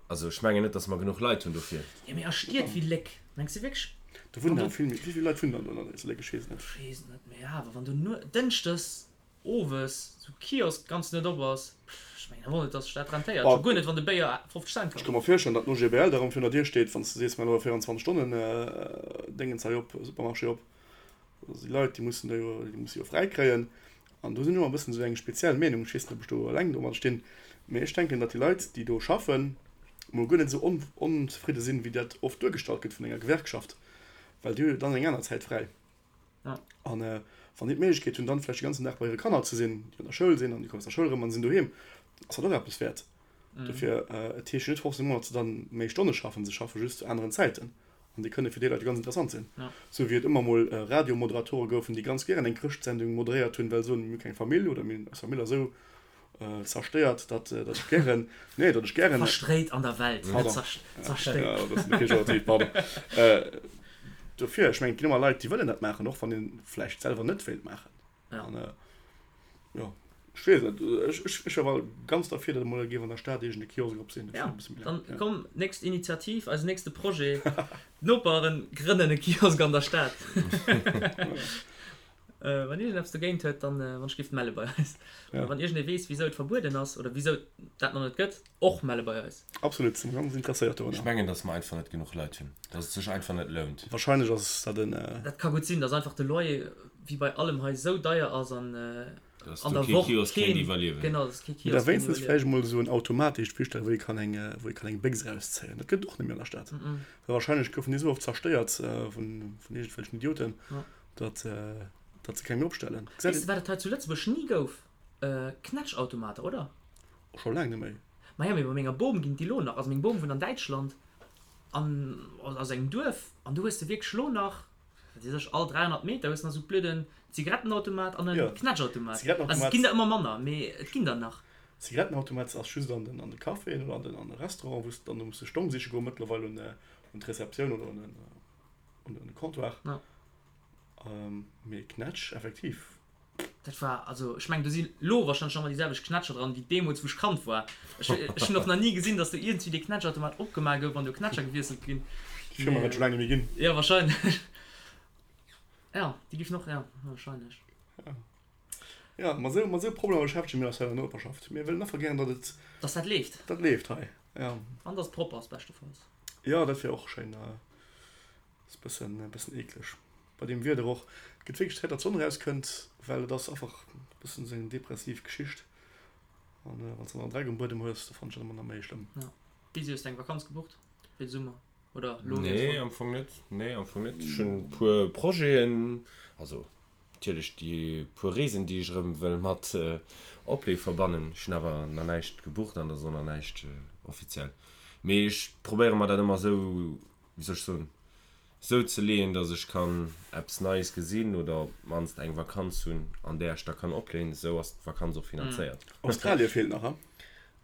Also ech mengen net, datt mer genuch Leit hunn dofir. Jo, mee a Stied wéi Léck, mengs de wierklech? Do wunnen awer vill méi. Wéi vill Leit wunnen dann do an Léck? Ech weess et net. Ech weess et net, mee awer wann do nuet, dënschdes Owes sou Kiosk ganz net op ass, ech mengen awer net dass sech dat rentéiert, scho guer net wann de Béier 50 Cent kascht. Ech ka mer virstellen datt den OGBL da rëm virun der Dier steet wann s de sees mir elo 24 Stonnen Déngens hei op, Supermarché op. Also déi Leit déi mussen da jo, déi musse jo fräi kréien. An do sinn ech och e bëssen esou eng speziell Meenung, ech weess net ob ech do eleng domat stinn, mee ech denken datt déi Leit déi do schaffen mol guer net esou onzefridde sinn wéi dat oft duergestallt gëtt vun enger Gewerkschaft, well déi hu jo dann eng aner Zäit fräi. An wann déi d'Méiglechkeet hunn, dann vläicht de ganzen Dag bei hire Kanner ze sinn, déi an der Schoul sinn, an déi kommen aus der Schoul erëm an sinn doheem, ass dat och eppes wäert. Dofir, et heescht jo net forcément, datt se dann méi Stonne schaffen, se schaffe just zu aneren Zäiten an déi kënne fir déi Leit jo ganz interessant sinn. Sou wéi et ëmmer mol Radiomoderatore goufen, déi ganz gären eng Chrëschtsendung moderéiert hunn, well se soen, mir hu keng Famill oder mir hunn eis Famill ass esou zerstéiert, datt ech gären, nee, datt ech gären. Verstréit an der Welt, net zerstéiert. Ja, dat ass pejorativ, pardon. Dofir, ech mengen, et ginn ëmmer Leit, déi wëllen dat maachen, och wann ee vläicht selwer net wéilt maachen. An jo, ech weess net, ech ech wier awer ganz derfir, datt emol géif an der Stad iergend e Kiosk op sinn. Ja, dann komm, nächst Initiativ, eisen nächste Projet, D'Noperen grënnen e Kiosk an der Stad. Wann iergend eppes dogéint huet, dann wann ech giff melle bei eis. Oder wann iergend ee weess wisou et verbueden ass oder wisou et dat nach net gëtt, och melle bei eis. Absolut, si ganz interesséiert dorunner. Ech mengen, dass mer einfach net genuch Leit hunn, dass et sech einfach net lount. Wahrscheinlech ass dat en. Dat ka gutt sinn, dass einfach de Loyer wéi bei allem hei esou deier ass an an der Woch keen iwwerliewen. Genau, dass kee Kiosk kéint iwwerliewen. Wéinstens vläicht emol esou en Automat, dee ech virstellen, wou ee kann eng, wou ee kann eng Béchs erauszéien. Dat gëtt et och net méi an der Stad. Well wahrscheinlech goufen déi esou oft zerstéiert vun iergendwelchen Idioten. Datt datt se keng méi opstellen. Weess de wat et hei zu Lëtzebuerg ni gouf? Knätschautomater, oder? Och scho laang net méi. Maja, mee bei menger Bom ginn et déi lo nach. Also meng Bom wunnt an Däitschland an aus engem Duerf an do hues de wierklech lo nach, wat weess ech, all 300 Meter hues de nach esou blöden Zigarettenautomat an en Knätschautomat. Also et ginn der ëmmer manner, mee et ginn der nach. Zigarettenautomat ass just an den an de Caféen oder an den an de Restauranten, wou s de dann do muss de Stong siche goen mëttlerweil un un d'Receptioun oder un den un den Comptoir. Mee Knätsch, effektiv. Dat war, also ech mengen do si lo wahrscheinlech nach emmer déi selwecht Knätscher dran wéi deemools wou ech Kand war. Ech ech hunn och nach ni gesinn dass do iergendwéi dee Knätschautomat opgemaach gouf an do Knätscher gewiesselt ginn. Déi Firma wäert scho laang net méi ginn. Jo wahrscheinlech. Jo déi giff och, jo wahrscheinlech. Jo mat esou mat esou Problemer beschäftege mir eis hei an der Noperschaft. Mir wëllen einfach gären datt et. Dass dat leeft. Dat leeft hei, jo. An dass et propper ass beschtefalls. Jo dat wier och schéin. Ass bëssen bëssen eekleg bei deem Wieder och. Et gëtt wierklech Zäit datt d'Sonn erauskënnt, well et ass einfach bëssen esou eng depressiv Geschicht. An wann s de dann Dreck um Buedem hues, da fannen ech dat ëmmer nach méi schlëmm. Ja. Busy, hues de eng Vakanz gebucht fir de Summer oder lo geet Nee, am Fong net. Nee, am Fong net. Ech hunn e puer Projeten, also natierlech déi puer Reesen, déi ech erëm wëll mat Oplee verbannen. Ech hunn awer nach näischt gebucht an et ass och nach näischt offiziell. Mee ech probéiere mer dat ëmmer esou wéi soll ech soen, sou ze leeën, dass ech kann eppes Neies gesinn oder op d'mannst eng Vakanz hunn, an där ech da kann opleeën. Esou ass d'Vakanz och finanzéiert. Australie feelt nach, he?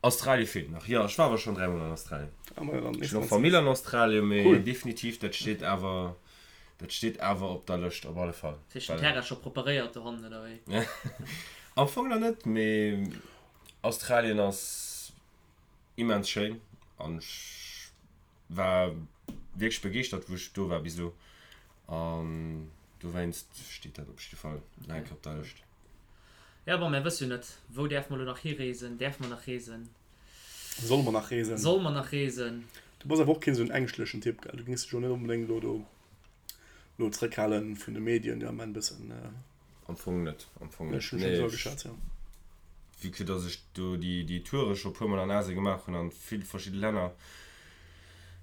Australie feelt nach, jo. Ech war awer schonn dräimol an Australien. Ah, majo, dann Ech hunn och Famill an Australien, mee definitiv, dat steet awer, dat steet awer op der Lëscht, op alle Fall. Hues de den Terrain scho preparéiert dohannen, oder wéi? Am Fong nach net, mee Australien ass immens schéin an ech War wierklech begeeschtert wou ech do war bis elo an dowéinst steet dat op jidde Fall nach eng Kéier op der Lëscht. Ja, bon, mär wësse jo net, wou däerfe mer elo nach hireesen? Däerfe mer nach reesen? Solle mer nach reesen? Solle mer nach reesen? Du bass awer och keen esou en ängschtlechen Typ, gell? Du géings dech jo net onbedéngt elo do elo zréckhalen vun de Medien, déi am Ament bëssen. Am Fong net, am Fong net. Ech hunn schonn esou ageschat, jo. Vue que dass ech do déi déi Toure scho puer mol an Asien gemaach hunn an vill verschidde Länner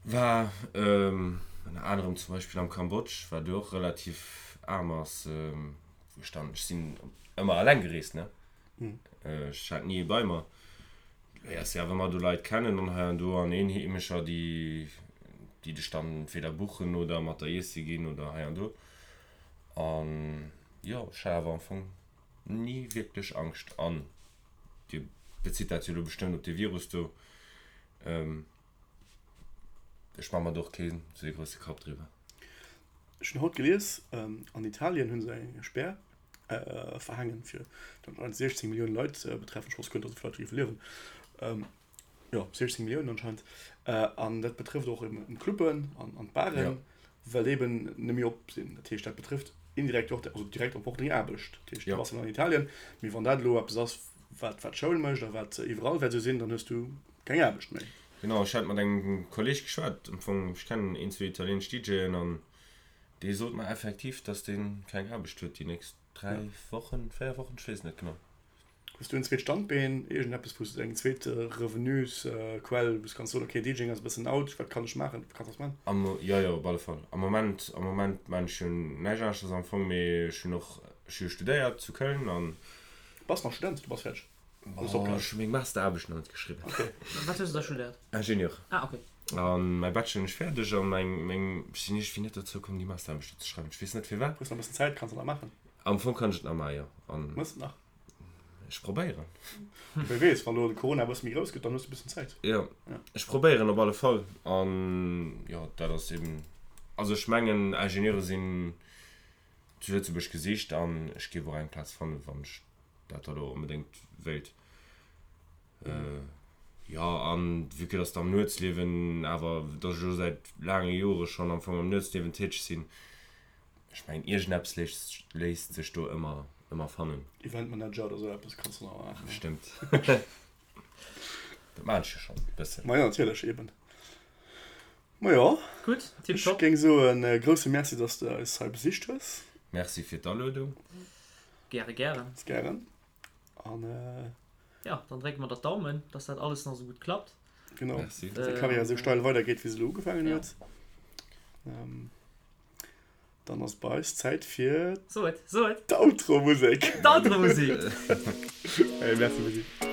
war, ënner anerem zum Beispill am Kambodsch, wat jo och relativ aarm ass, wou ech dann, ech sinn ëmmer alleng gereest, ne, ech hat ni ee bei mer, léiers jo awer ëmmer do Leit kennen an hei an do an Eenheemescher, déi déi dech dann entweder buchen oder mat der iesse ginn oder hei an do. An jo, ech hat awer am Fong ni wierklech Angscht. An Dir bezitt dat jo elo bestëmmt op dee Virus do. Ech maache mer do och keen esou ee grousse Kapp driwwer. Ech hunn haut gelies, an Italien hu se eng Spär verhaangen, fir anscheinend 16 Milliounen Leit betreffen. Ech wosst guer net, datt esou vill Leit do géife liewen. Jo, 16 Milliounen anscheinend. An dat betrëfft och eben d'Clubben an d'Baren, well déi eben net méi op sinn. Dat heescht, dat betrëfft indirekt och, also direkt och deng Aarbecht. Dat heescht, du bass dann an Italien, mee wann dat elo eppes ass, wat wat d'Schoul mécht a wat iwwerall wäert esou sinn, dann hues du keng Aarbecht méi. Genau, ech hat mat engem Kolleeg geschwat, am Fong, ech kennen een, zwee italieenesch DJen an dee sot mer effektiv, dass dee keng Aarbecht huet déi nächst 3 Wochen, 4 Wochen, ech weess et net genau. Hues du en zweet Standbeen, iergendeppes wou s de eng zweet Revenusquell, wou s kanns soen, ok DJing ass e bëssen out, wat kann ech maachen, wat kanns du maachen? Am, jo jo, op alle Fall. Am Moment, am Moment maan ech jo näischt aneschters am Fong, mee ech hunn och, ech hu jo studéiert zu Köln an. Bass nach Student? Du bass fäerdeg? Hues opgehal? Ech hu meng Masteraarbecht nach net geschriwwen. Ok. Wat hues du da studéiert? Ingenieur. Ah ok. An mäi Bachelor hunn ech fäerdeg an meng, meng, ech sinn iergendwéi net dozou komm déi Masteraarbecht do ze schreiwen, ech weess net firwat. Hues nach e bëssen Zäit, kanns de nach maachen. Am Fong kann ech et nach maachen, jo. An. Mëss et nach? Ech probéieren. Wie weess, wann elo de Corona e bësse méi grouss gëtt, dann hues de e bëssen Zäit. Jo, ech probéieren op alle Fall. An jo, dat ass eben, also ech mengen, Ingenieure sinn zu Lëtzebuerg gesicht an ech géif och eng Plaz fannen, wann ech dat da elo onbedéngt wéilt. Jo, an vue que dass de am Nuetsliewen awer, dass ech elo säit laange Jore schonn am Fong am Nuetsliewen täteg sinn, Ech mengen iergendeppes léisst sech do ëmmer ëmmer fannen. Eventmanager oder sou eppes kanns du nach maachen. Bestëmmt. Dat maan ech jo schon bëssen. Majo natierlech, eben. Majo. Gutt, tip top. Ech géing soen e grousse Merci dass de eis hei besicht hues. Merci fir d'Aluedung. Gäre gären. Ganz gären. An Ja, dann drécke mer der d'Daumen, dass dat alles nach sou gutt klappt. Genau. Merci. Dass deng Karriär sou steil weidergeet wéi se elo ugefaangen huet. Dann ass bei eis Zäit fir So et, so et. d'Outro-Musek. D'Outro-Musek! Hey, merci Busy.